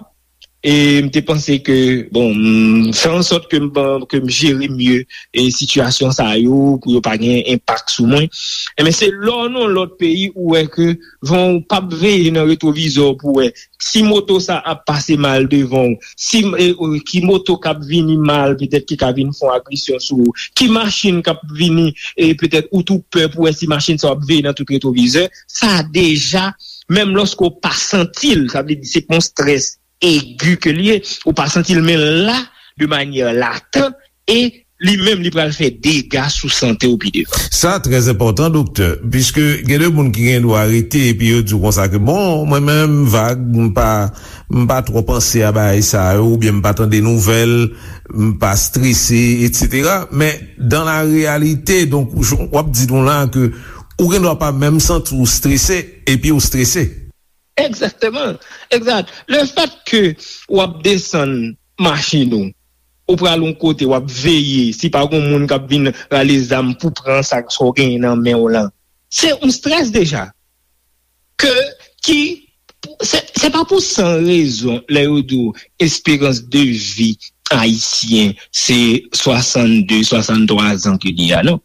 e m te panse ke, bon, m fè an sòt ke m, ke m jere mye e sitiyasyon sa yo, pou yo pa gen enpak sou mwen. Enben, se lè w nan yon lòt peyi ou wè ke van w p ap veye nan retwovizè w pou wè si moto sa ap pase mal devan w, si, e, e, ki moto k ap vini mal, petèt ki ka vin fè yon agresyon sou ou, ki machin k ap vini, e petèt ou tou pè pou wè si machin sa w ap veye nan tout retwovizè, sa deja, menm lòske w pa santi l, sa vle di se pa yon strès egi ke l ye, ou pa santi l, men l la, de manyè latan, e li menm, li pral fè dega sou sante w pi devan. Sa trè enpòtan, doktè, piske gen de moun ki gen dwa rete epi yo di w konsa ke, bon, mwen menm, vag, m pa, m pa twò panse a bagay sa yo, oubyen m pa tande nouvèl, m pa strese, etsetera. Men, dans la réalité, donk, w ap di nou la ke ou gen dwa pa menm santi w strese, epi w strese. Egzakteman. Egzat. Le fèt ke w ap desann machin ou, ou pral yon kote, w ap veye, si pa gen moun k ap vin rale zam pou pran sa, sa w genyen nan men w lan, se yon strès deja. Ke, ki, se, se pa pou san rezon, lè yo di w esperans de vi ayisyen, se swasannde, swasanntwa zan ke li a, non.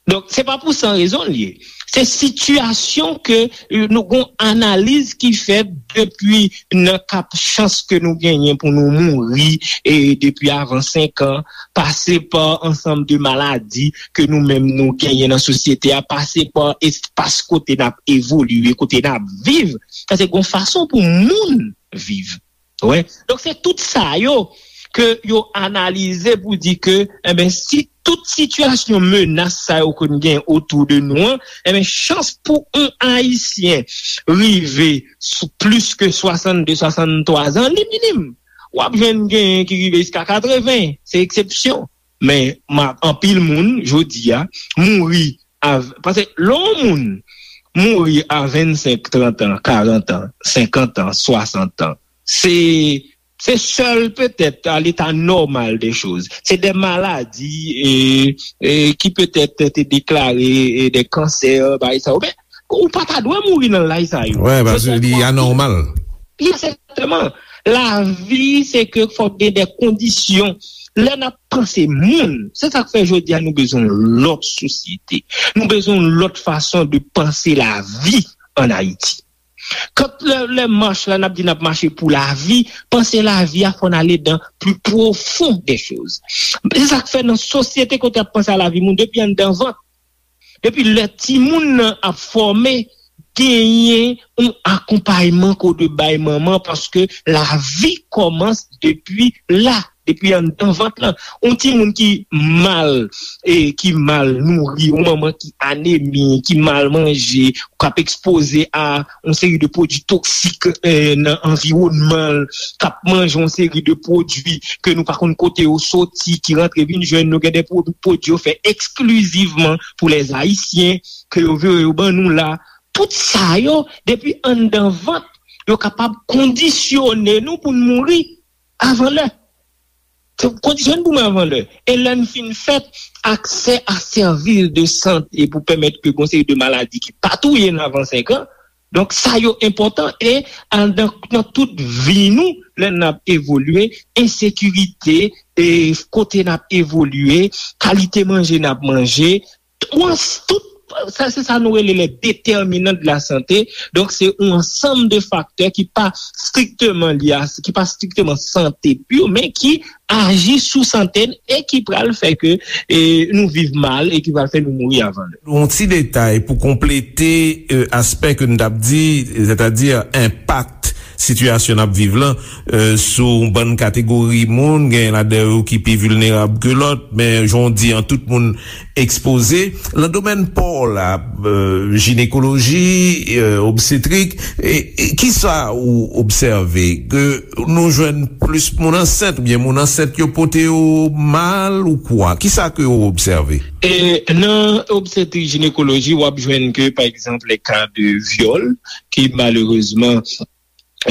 Donk, se pa pou san rezon l ye. Se sitiyasyon ke, e, nou gon analiz ki fèt depi nan kap chans ke nou genyen pou nou mouri, e depi avan senk an, pase pa ansanm de maladi ke nou menm nou genyen nan sosyete a, pase pa espas kote n ap evolye, kote n ap viv. Paske gon fason pou moun viv. Wè. Donk, se tout sa yo ke yo analize pou di ke, enben, si tout sitiyasyon menas sa yo ke n gen otou de nou an, enben, chans pou yon Ayisyen rive sou plis ke swasannde, swasanntwa zan, li minim. W ap jwenn genyen ki rive jiska katreven, se eksepsyon. Men, ma, anpil moun, jodi a, mouri a, paske lè yon moun mouri a vennsenk, trant an, karant an, senkant an, swasant an, se, se sèl petèt a leta nòmal de choz. Se de maladi, e, e, ki petèt te deklare, e, de kansè, bagay sa yo. Men, ou pa ta dwe mouri nan laj sa yo. Wè, paske li anòmal. Egzakteman. Lavi, se ke fòk gen de kondisyon. Lè n ap panse moun, se sa k fè jodi a nou bezwen yon lòt sosyete. Nou bezwen yon lòt fason de panse lavi an Ayiti. Kant lè, lè mach la, n ap di n ap mache pou lavi, panse lavi a fò n ale dan pli pwofon de choz. Se sa k fè nan sosyete kote ap panse a lavi moun depi anndan vant, depi lè timoun nan ap fòme, genyen yon akonpayman kote bay manman paske lavi kòmans depi la, depi anndan vant lan. Yon timoun ki mal, e ki mal nouri, yon manman ki anemi, ki mal manje, k ap ekspoze a yon seri de pwodui toksik, e, nan anviwònman l, k ap manje yon seri de pwodui ke nou pa konn kote yo soti, ki rantre vin jwenn nou, gen de pwo- pwodui yo fè eksklizivman pou lèzayisyen, ke yo vire yo ban nou la. Tout sa yo, depi anndan vant, yo kapab kondisyone nou pou n mouri avan lè. Kondisyone pou mouri avan lè. E lè n fin fèt, aksè a sèvis de sante pou pèmèt ke gon seri de maladi ki pa touye n avan senk an. Donk, sa yo enpòtan e anndan, nan tout vi nou, lè n ap evolye, ensekirite, e kote n ap evolye, kalite manje n ap manje, tout, tout sa, se sa nou rele les déterminants de la santé. Donk, se yon ansanm de faktè ki pa strikteman lye a, ki pa strikteman sante pure, men ki aji sou sante n e ki pral fè ke, e, nou viv mal e ki pral fè nou mouri avan lè. Yon ti detay pou konplete, e, aspè ke n t ap di, sètadi enpak sitiyasyon n ap viv lan, e, sou yon bann kategori moun, gen ladan yo ki pi vilnerab ke lòt, men jan w di an, tout moun ekspoze. Nan domèn pa w la, e, jinekoloji, e, obstetrik, e, e, kisa ou obsève? Ke nou jwenn plis moun ansent, oubyen moun ansent yo pote yo mal ou kwa? Kisa ke ou obsève? E nan obstetrik jinekoloji, w ap jwenn ke, pa egzanp, les cas de viol, ki malerezman,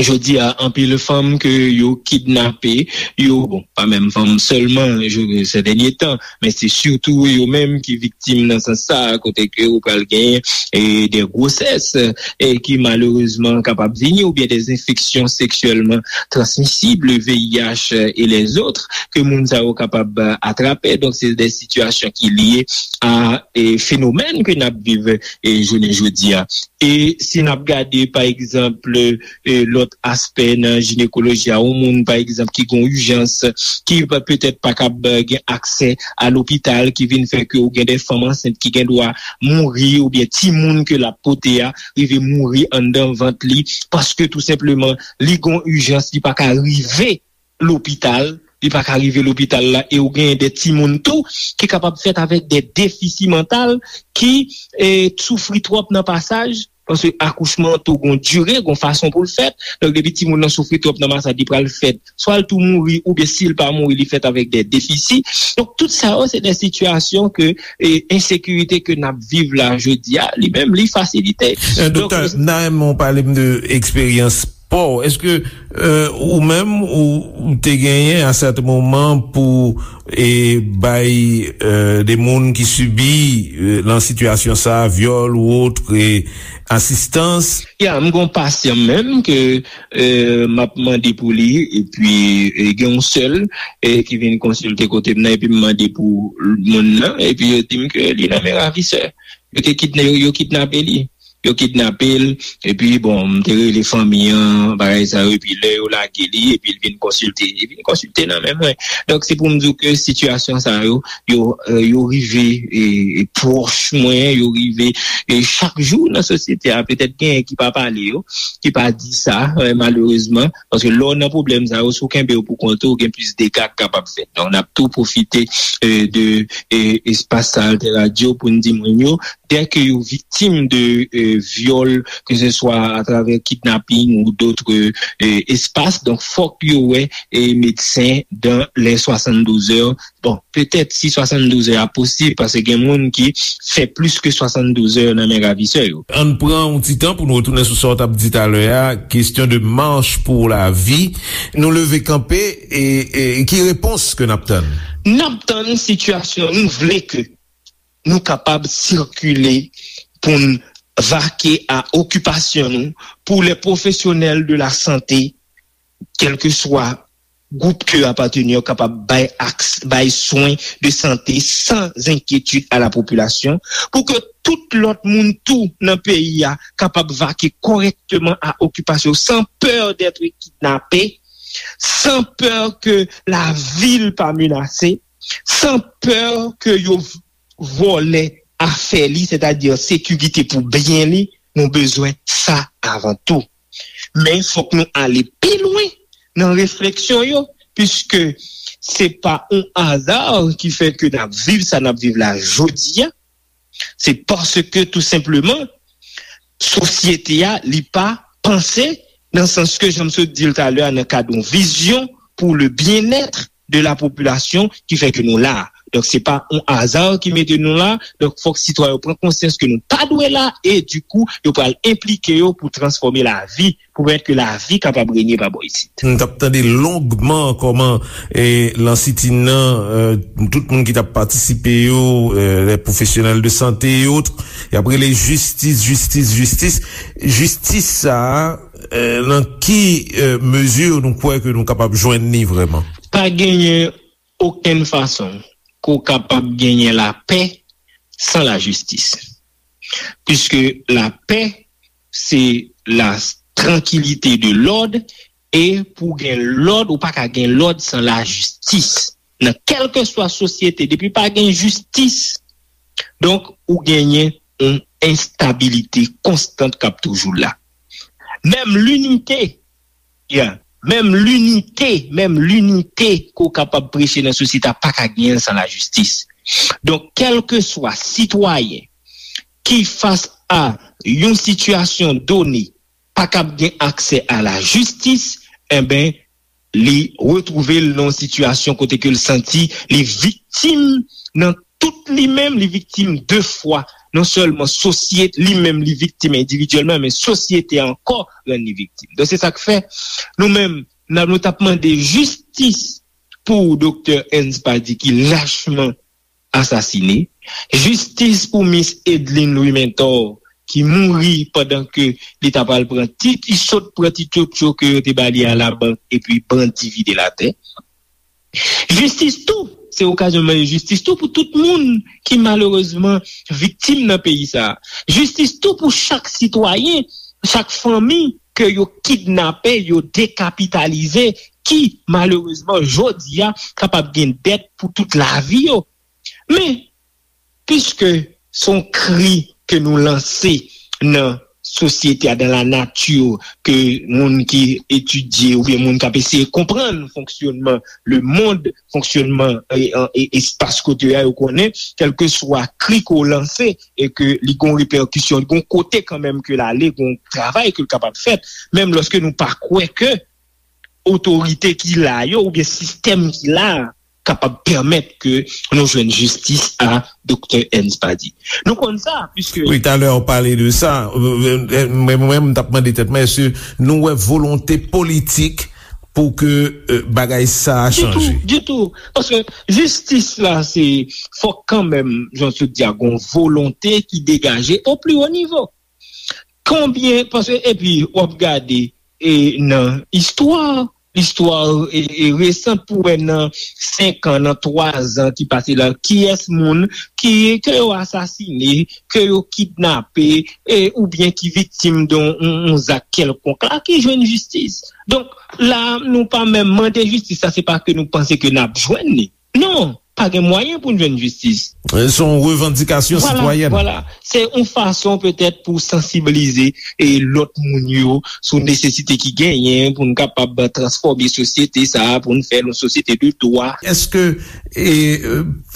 jodi a, anpil fanm ke yo kidnape, yo, bon, pa menm fanm sèlman, je, ces derniers temps, men se sitou yo menm ki viktim nan sans sa, kote ke ou pral genyen, e, de gwosès, e, ki malerezman kapab vini, oubyen des infections sexuellement transmissibles, V I H, e, et les autres, ke moun sa yo kapab, e, atrape. Donk, se de sitiyasyon ki lye a, e, fenomèn ke n ap viv, e, jounen jodi a. E si n ap gade, pa egzanp, e, lòt aspè nan jinekoloji a, yon moun, pa egzanp, ki gen yon ijans, ki pa, petèt pa kab, e, gen aksè a lopital, ki vin fè ke ou gen de fanm ansent ki gen dwa mouri, oubyen timoun ke l ap pote a rive mouri anndan vant li, paske tou senpleman, li gen yon ijans, li pa ka rive lopital, li pa ka rive lopital la, e ou genyen de timoun tou ki kapab fèt avèk de defisi mantal, ki, e, soufri twòp nan pasaj, paske akouchman an tou gon dire, gon fason pou l fèt. Donk, depi timoun nan soufri twòp nan pasaj, li pral fèt, swa l tou mouri, oubyen si l pa mouri, li fèt avèk de defisi. Donk, tout sa yo, se de sitiyasyon ke, e, ensekirite ke n ap viv la jodi a, li menm, li fasilite. E, Doktè, m ta renmen w pale m de eksperyans pa w. Èske, e, ou menm, ou, ou te genyen a sèten moman pou, e, bay, e, de moun ki sibi, e, nan sitiyasyon sa, vyòl ou ot, e, asistans? Ya, m gon pasyan menm ke, e, m ap mande pou li, epi, e, gen yon sèl, e, ki vin konsilte kote m nan, epi m mande pou moun nan, epi yo di m ke li nan men ravisè. Yo te kidna-, yo, yo kidnape li. Yo kidnape l, epi bon, m te rele fanmi an, bagay sa yo, epi lè yo lage li, epi l vin konsilte. Li vin konsilte nan men mwen. Donk, se pou m di w ke sitiyasyon sa yo, yo, e, yo rive, e, e, pwòch mwen, yo rive, e, chak jou nan sosyete a, petèt genyen ki pa pale yo, ki pa di sa, e, malerezman, paske lè w nan pwoblèm sa yo, si w kenbe yo pou kont ou, gen plis dega k kapab fèt. Donk, n ap tou pwofite, e, de, e, espas sa, Alter Radio, pou n di moun yo, dès que yo viktim de, e, vyòl, ke se swa atravè kidnaping ou dòt, e, espas, donk fòk yo wè, e, medsen dans les soixante-douze heures. Bon, petèt si swasann douz è a posib, paske gen moun ki fè plis ke swasann douz è nan men ravisè yo. Ann pran yon ti tan pou nou retounen sou sa w t ap di talè a, kesyon de mach pou lavi. Nou leve kanpe, e, e ki repons ke n ap tann? N ap tann sitiyasyon, nou vle ke nou kapab sikile pou n vake a okipasyon nou, pou les professionnels de la santé, kèlkeswa gwoup ke yo apateni yo kapab bay aks-, bay swen de sante san enkyetid a la popilasyon, pou ke tout lòt moun tou nan peyi a kapab vake kòrèkteman a okipasyon yo, san pè d'être kidnappé, san pè ke lavi l pa menase, san pè ke yo vòlè afè li, sètadi sekirite pou byen li, nou bezwen sa avan tou. Men fòk nou ale pi lwen nan refleksyon yo, piske se pa yon aza ki fè ke n ap viv sa n ap viv la jodi a. Se paske tou senpleman, sosyete a, li pa panse nan sans ke, jan m sot di l talè a, nan kad yon vizyon pou le bien-être de la population ki fè ke nou la. Donk, se pa yon aza ki mete nou la. Donk, fòk sitwayen yo pran konsyans ke nou pa dwe la e, dikou, yo pral enplike yo pou transfòme lavi, pou pèmèt ke lavi kapab renye pa bò isit. Nou t ap tande longman kòman, e, lan sitin nan, e, tout moun ki t ap patisipe yo, e, les professionnels de santé et autres, y ap rele jistis, jistis, jistis. Jistis sa a, e, nan ki, e, mezi nou kwè ke nou kapab jwenn li vrèman? Pa genyen okenn fason ke w kapab genyen lapè san lajistis. Piske lapè, se la tranquillité de l'ordre, e pou gen lòd, ou pa ka gen lòd san lajistis. Nan kèlkeswa sosyete, depi pa gen jistis, donk, ou genyen yon enstabilite konstant k ap toujou la. Menm linite, yeah, menm linite, menm linite ke w kapab preche nan sosyete a pa ka genyen l san lajistis. Donk, kèlkeswa sitwayen ki fas a yon sitiyasyon done pa kab gen aksè a lajistis, enben, li retwouve l nan yon sitiyasyon kote ke l santi li viktim nan tout li menm, li viktim de fwa. Non sèlman sosyete, li menm li viktim endividyèlman, men sosyete a ankò rann li viktim. Donk, se sa k fè, nou menm, n ap, nou t ap mande jistis pou Doktè Ernst Paddy ki lachman asasine. Jistis pou Miss Edline Louis Mentor, ki mouri pandan ke li ta pral pran ti, ti sot, pran ti tchotcho ke yo te ba li a labank, epi bandi vide l atè. Jistis tou, se okazyon mande jistis tou pou tout moun ki malerezman viktim nan peyi sa a. Jistis tou pou chak sitwayen, chak fanmi ke yo kidnape, yo dekapitalize, ki malerezman jodi a kapab gen dèt pou tout lavi yo. Men, piske se yon kri ke nou lanse nan sosyete a, dans la nature, ke moun ki etidye oubyen moun k ap eseye konprann fonksyònman lemonn, fonksyònman, e, e, e, espas kote a, yo konnen, kèlkeswa kri ke w lanse, e ke li gon repèkisyon, li gon kote kanmenm ke l ale, gon travay ke l kapab fèt, menm lòske nou pa kwè ke otorite ki la yo oubyen sistèm ki la a kapab pèmèt ke nou jwenn jistis a Doktè Ernst Paddy. Nou konn sa, piske wi, talè w pale de sa. Mwen, mwen, mwen, m t ap mande tèt mwen, èske nou wè volonte politik pou ke, e, bagay sa a chanje? Ditou, ditou. Paske jistis la, se, fòk kanmenm, jan w sot di a, gon volonte ki degaje o pli wo nivo. Konbyen, paske, epi, w ap gade, e, nan istwa, istwa, e, e, resan pou wè nan senk an, nan twa zan ki pase la, kiyès moun ki, ke yo asasine, ke yo kidnape, e, oubyen ki viktim de yon, yon, yon zak kèlkonk la, ki jwenn jistis. Donk, la, nou pa menm mande jistis, sa se pa ke nou panse ke n ap jwenn li. Non, pa gen mwayen pou n jwenn jistis. Se yon revandikasyon sitwayèn. Vwala, vwala. Se yon fason petèt pou sansibilize e lòt moun yo sou nesesite ki genyen pou n kapab transfòme sosyete sa a, pou n fè l yon sosyete de dwa. Èske, e,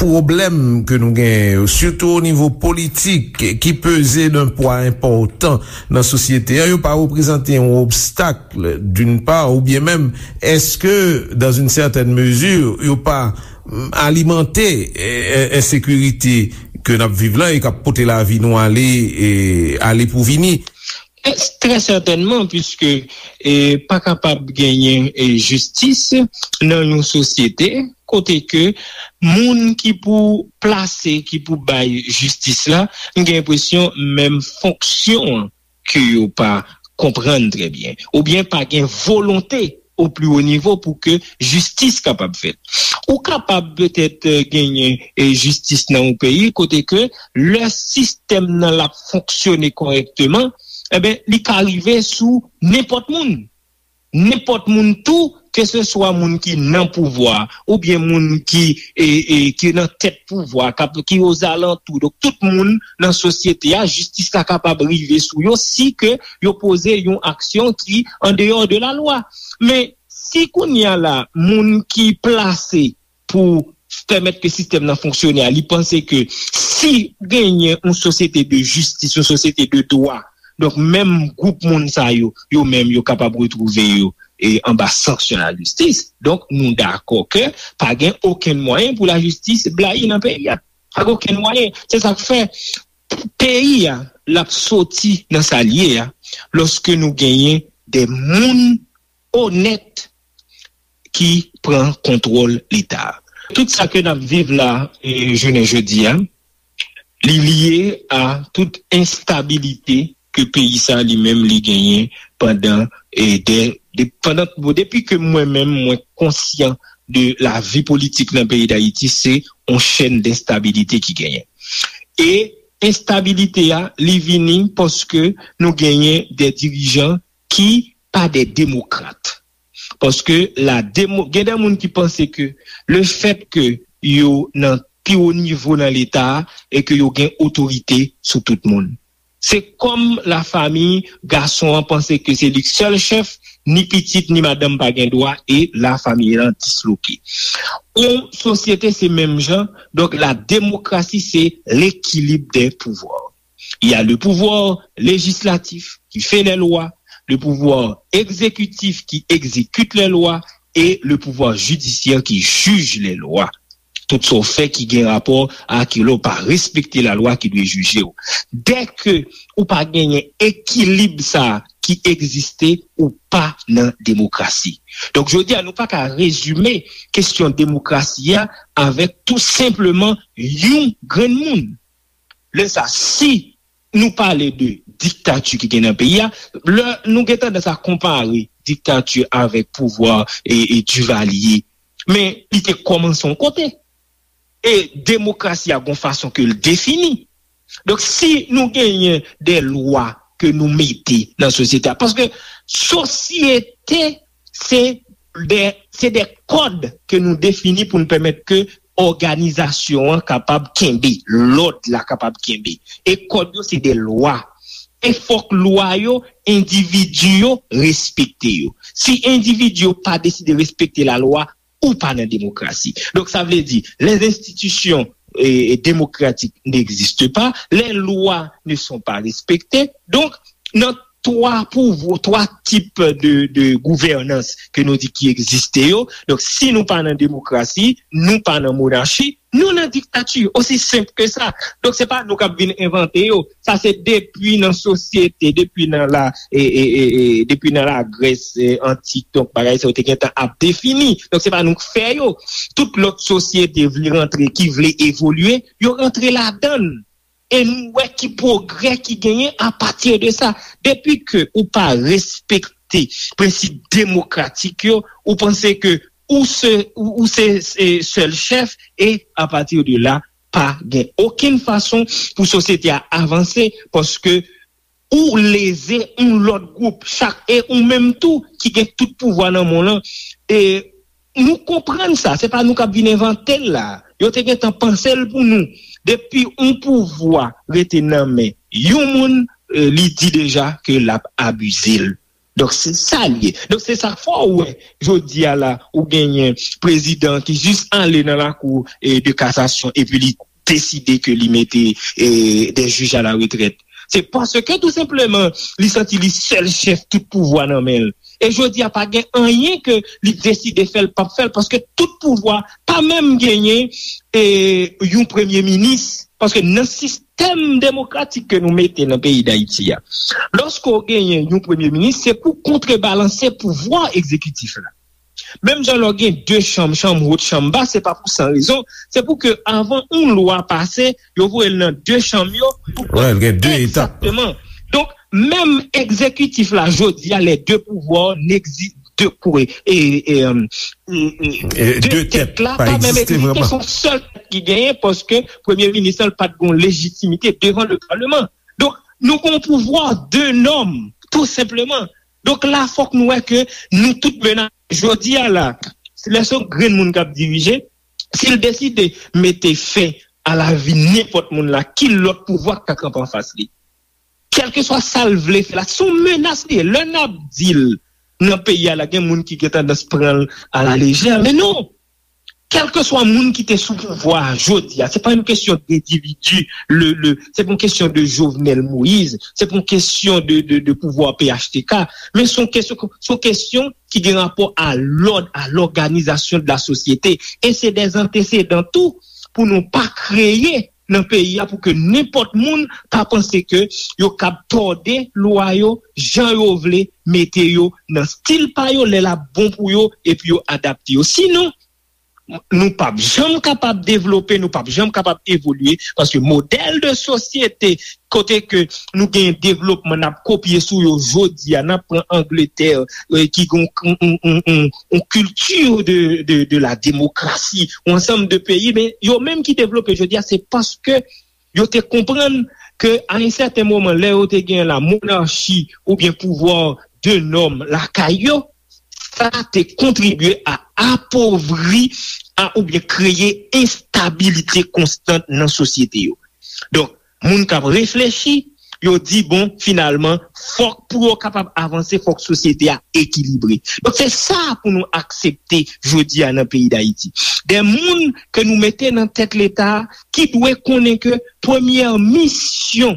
pwoblèm ke nou genyen yo, sitou o nivo politik, ki peze d'un pwa enpòtan nan sosyete a, yo pa reprezante yon obstak d'une part, oubyen menm, èske, dans une certaine mesure, yo pa, mm, alimante, e, e, ensekirite ke n ap viv la e k ap pote lavi nou ale, e, ale pou vini? E, trè sètènman, piske, e, pa kapab genyen, e, jistis nan yon sosyete kote ke moun ki pou plase, ki pou bay jistis la, m gen enpresyon menm fonksyon an ke yo pa konprann trè byen, oubyen pa gen volonte au plus haut niveau pou ke jistis kapab fèt. Ou kapab petèt eh, genyen eh, jistis nan yon peyi kote ke lè sistèm nan l ap fonksyone kòrèkteman, enben, li ka rive sou nenpòt moun. Nenpòt moun tou, ke se swa moun ki nan pouvwa oubyen moun ki, e, e, ki nan tèt pouvwa, k ap, ki ozalantou. Donk, tout moun nan sosyete a, jistis la kapab rive sou yo si ke yo poze yon aksyon ki andeyò de la lwa. Men, si kounye a la, moun ki plase pou pèmèt ke sistèm nan fonksyone a, li panse ke si genyen yon sosyete de jistis, yon sosyete de dwa, donk menm gwoup moun sa yo, yo menm yo kapab retwouve yo e anba sanksyon lajistis. Donk nou dakò ke pa gen okenn mwayen pou lajistis blayi nan peyi a. Pa gen okenn mwayen. Se sa k fè peyi a, l ap soti nan sa l ye a, lòske nou genyen de moun onèt ki pran kontwòl Leta. Tout sa ke n ap viv la, e, jounen jodi a, li lye a tout enstabilite ke peyi sa li menm li genyen pandan, e, de, de, pandan, bon, depi ke mwen menm mwen konsyan de lavi politik nan peyi Dayiti, se yon chèn denstabilite ki genyen. E enstabilite a, li vini paske nou genyen de dirijan ki pa de demokrat. Paske la demo, gen de moun ki panse ke le fèt ke yo nan pi wo nivo nan Leta a e ke yo gen otorite sou tout moun. Se kòm lafanmi gason an panse ke se li k sèl chèf, ni pitit ni madanm pa gen dwa e lafanmi an disloke. Yon sosyete se menm jan, donk la démocratie se l'équilibre des pouvoirs. Il y a le pouvoir législatif qui fait les lois, le pouvoir exécutif qui exécute les lois et le pouvoir judiciaire qui juge les lois. Tout sa w fè ki gen rapò a ke lè w pa respekte lalwa ki dwe jije w. Dèke ou pa genyen ekilib sa a ki egziste, ou pa nan demokrasi. Donk, jodi a, nou pa ka rezime kesyon demokrasi a avèk tou senpleman yon grenn moun. Lè sa, si nou pale de diktati ki gen nan peyi a, lè nou gen tandans a konpare diktati avèk pouvwa e, e Duvalier, men li te kòmanse yon kote. E demokrasi a gon fason ke l defini. Donk, si nou genyen de lwa ke nou mete nan sosyete a, paske sosyete se de, se de kòd ke nou defini pou n pèmèt ke òganizasyon an kapab kenbe, lòd la kapab kenbe. E kòd yo se de lwa. E fòk lwa yo, endividi yo respekte yo. Si endividi yo pa deside respekte lalwa, ou pa nan demokrasi. Donk, sa vle di, les institutions eh, démocratiques n'existent pas, les lois ne sont pas respectées. Donk, nan twa pouvwa, twa tip de, de gouvènans ke nou di ki egziste yo. Donk, si nou pa nan demokrasi, nou pa nan monarchi, nou nan diktati. Osi senp ke sa. Donk, se pa nou k ap vin envante yo. Sa se depi nan sosyete, depi nan la, e, e, e, e, depi nan Lagrès e, antik, donk bagay sa yo te gentan ap defini. Donk, se pa nou k fè yo. Tout lòt sosyete vle rantre, ki vle evolye, yo rantre ladan l. E nou wè ki pwogrè ki genyen apati de sa. Depi ke ou pa respekte prensip demokratik yo, ou panse ke ou se, ou, ou se, se sèl chèf, e apati de la, pa gen okenn fason pou sosyete a avanse, paske ou leze yon lòt gwoup, chak, e ou menm tou ki gen tout pouvwa nan mond lan. E nou konprann sa, se pa nou k ap vin envante l la. Yo te gentan panse l pou nou. Depi yon pouvwa rete nan men yon moun, eh, li di deja ke l ap abize l. Donk, se sa l ye. Donk, se sa k fè w wè, jodi a la, ou genyen prezidan ki jis ale nan lakou, eh, de kasasyon epi li deside ke li mete, eh, de jij a la retrèt. Se paske tou senpleman, li santi li sèl chèf, tout pouvwa nan men l. E jodi a, pa gen anyen ke li deside fè l, p ap fè l, paske tout pouvwa pa menm genyen, eh, yon premye minis. Paske nan sistèm demokratik ke nou mete nan peyi Dayiti a, lòske w genyen yon premye minis, se pou kontrebalanse pouvwa egzekitif la. Menm jan lè w gen de chanm, chanm wo, chanm ba, se pa pou san rezon. Se pou ke avan yon lwa pase, yo voye l nan de chanm yo. Pou... Wè, l gen de etap. Egzakteman. Donk, menm egzekitif la, jodi a, les deux pouvoirs n'exi-, de kou e, e, e, e, e, de tèt la pa menm egziste, se yon sèl tèt ki genyen, paske premye minis la pa t gen lejitimite devan le palman. Donk, nou gen yon pouvwa de nòm, tou senpleman. Donk, la, fòk nou wè ke nou tout menase. Jodi a la, lè se yon grenn moun k ap dirije, si l deside mete fen a lavi nenpòt moun la, ki lòt pouvwa k ka kanpe anfas li? Kèlkeswa sa l vle fè la, se yon menas li ye. Lè n ap di l nan peyi a la, gen moun ki gen tandans pran l a la lejè, men non. Kèlkeswa moun ki te sou pouvwa a jodi a, se pa yon kesyon de endividi, le, le, se pa yon kesyon de Jovenel Moïse, se pa yon kesyon de, de, de pouvwa P H T K, men se yon kesyon, se yon kesyon ki gen rapò a lòd, a lòganizasyon de la sosyete. E se dè antesedan tou pou nou pa kreye nan peyi a, pou ke nenpòt moun pa panse ke yo kab tòde lwa yo jan yo vle, mete yo nan stil pa yo lè l ap bon pou yo, epi yo adapte yo. Sinon, nou p ap janm kapab devlope, nou p ap janm kapab evolye, paske modèl de sosyete kote ke nou gen devlopman, n ap kopye sou yo jodi a, n ap pran Angletè, eh, ki gen yon, yon, yon, yon, yon kilti de, de, de la demokrasi, yon ansanm de peyi, men yo menm ki devlope jodi a, se paske yo te konprann ke a yon sèten moman, lè yo te gen la monarchi oubyen pouvwa de nòm lakay yo, sa te kontribye a apovri a oubyen kreye enstabilite konstan nan sosyete yo. Donk, moun k ap reflechi, yo di, bon, finalman, fòk pou yo kapab avanse, fòk sosyete a ekilibre. Donk, se sa pou nou aksepte jodi a nan peyi Dayiti. De moun ke nou mete nan tèt Leta a, ki dwe konnen ke premyè misyon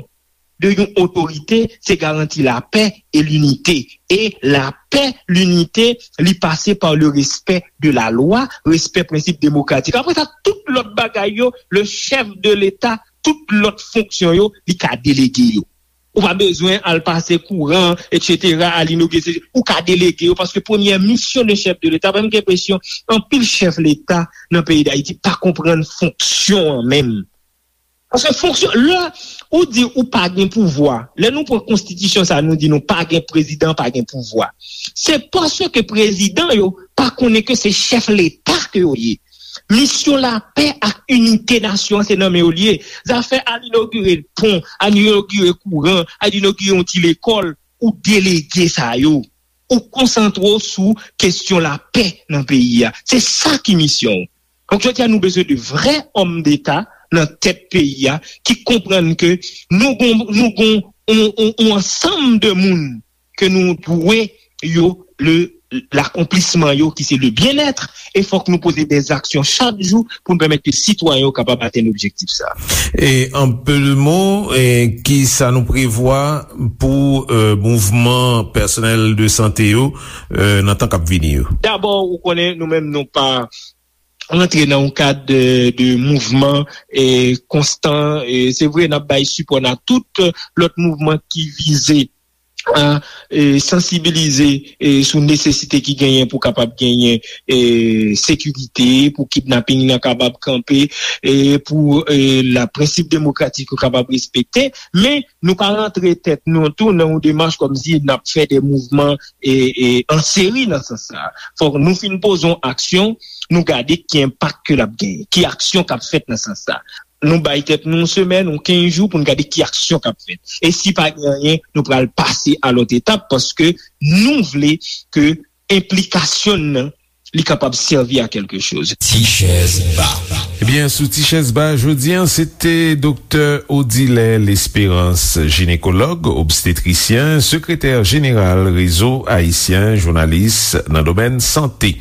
de yon otorite, se garanti lapè e linite. E lapè, linite, li pase pa le respè de la lwa, respè prensip demokratik. Apre sa, tout lòt bagay yo, le chèf de Leta, tout lòt fonksyon yo, li ka delege yo. Ou pa bezwen al pase kouran, et cetera, al inogire, ou ka delege yo, paske premyè misyon de chèf de Leta, mwen gen enpresyon, anpil chèf Leta nan peyi Dayiti pa konprann fonksyon an menm. Paske fonksyon, lè ou di ou pa gen pouvwa, lè nou pran konstitisyon sa, nou di nou pa gen prezidan, pa gen pouvwa. Se paske prezidan yo pa konnen ke se chèf Leta ke yo ye. Misyon lapè ak inite nasyon an, se nan men yo li ye. Zafè al inogire pon, al inogire kouran, al inogire yon ti lekòl, ou delege sa yo. Ou konsantre w sou kesyon lapè nan peyi a. Se sa ki misyon w. Donk, jodi a, nou bezwen de vrè òm deta nan tèt peyi a ki konprann ke nou gon, nou gon on, on, on ansanm de moun ke nou dwe yo le, lakonplisman yo ki se le byenèt, e fòk nou poze dè aksyon chak jou pou n pèmèt ke sitwayen yo kapab atenn objektif sa. E an peu de mots, e ki sa nou prevwa pou, euh, mouvman pèsonèl de sante yo, euh, nan tan k ap vini yo? Dabò, ou konnen, nou menm nou pa rantre nan yon kad de, de mouvman, e, konstan. E, se vre, n ap bay sipò nan tout lòt mouvman ki vize a, e, sansibilize, e, sou nesesite ki genyen pou kapab genyen, e, sekirite, pou kidnaping nan kapab kanpe, e, pou, e, la prensip demokratik yo kapab respekte. Men, nou pa rantre tèt nou tou nan yon demach kòmsi n ap fè de mouvman, e, e, an seri nan sans sa. Fòk nou fin poze yon aksyon, nou gade ki enpak ke l ap genyen, ki aksyon k ap fèt nan sans sa. Nou bay tèt nou yon semèn, yon kenz jou pou n gade ki aksyon k ap fèt. E si pa gen anyen, nou pral pase a lòt etap paske nou vle ke enplikasyon n nan, li kapab sèvi a kèlke choz. Ti chèz ba. Ebyen, sou Ti chèz ba, jodi a, se te Doktè Odilè Lesperans, jinekològ, obstetrisyen, sekretè jeneral Rezo Ayisyen Jounalis nan domèn sante.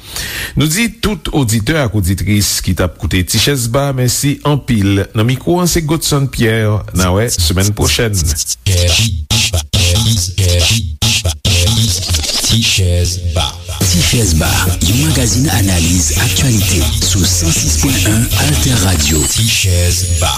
Nou di tout oditè ak oditris ki t ap koute Ti chèz ba, mèsi anpil. Nan mikwo an, se Godson Pierre. N a wè semèn pwochèn. Ti chèz ba. Ti chèz ba, yon magazin analiz aktyalite sou san sis pwen en Alter Radio. Ti chèz ba.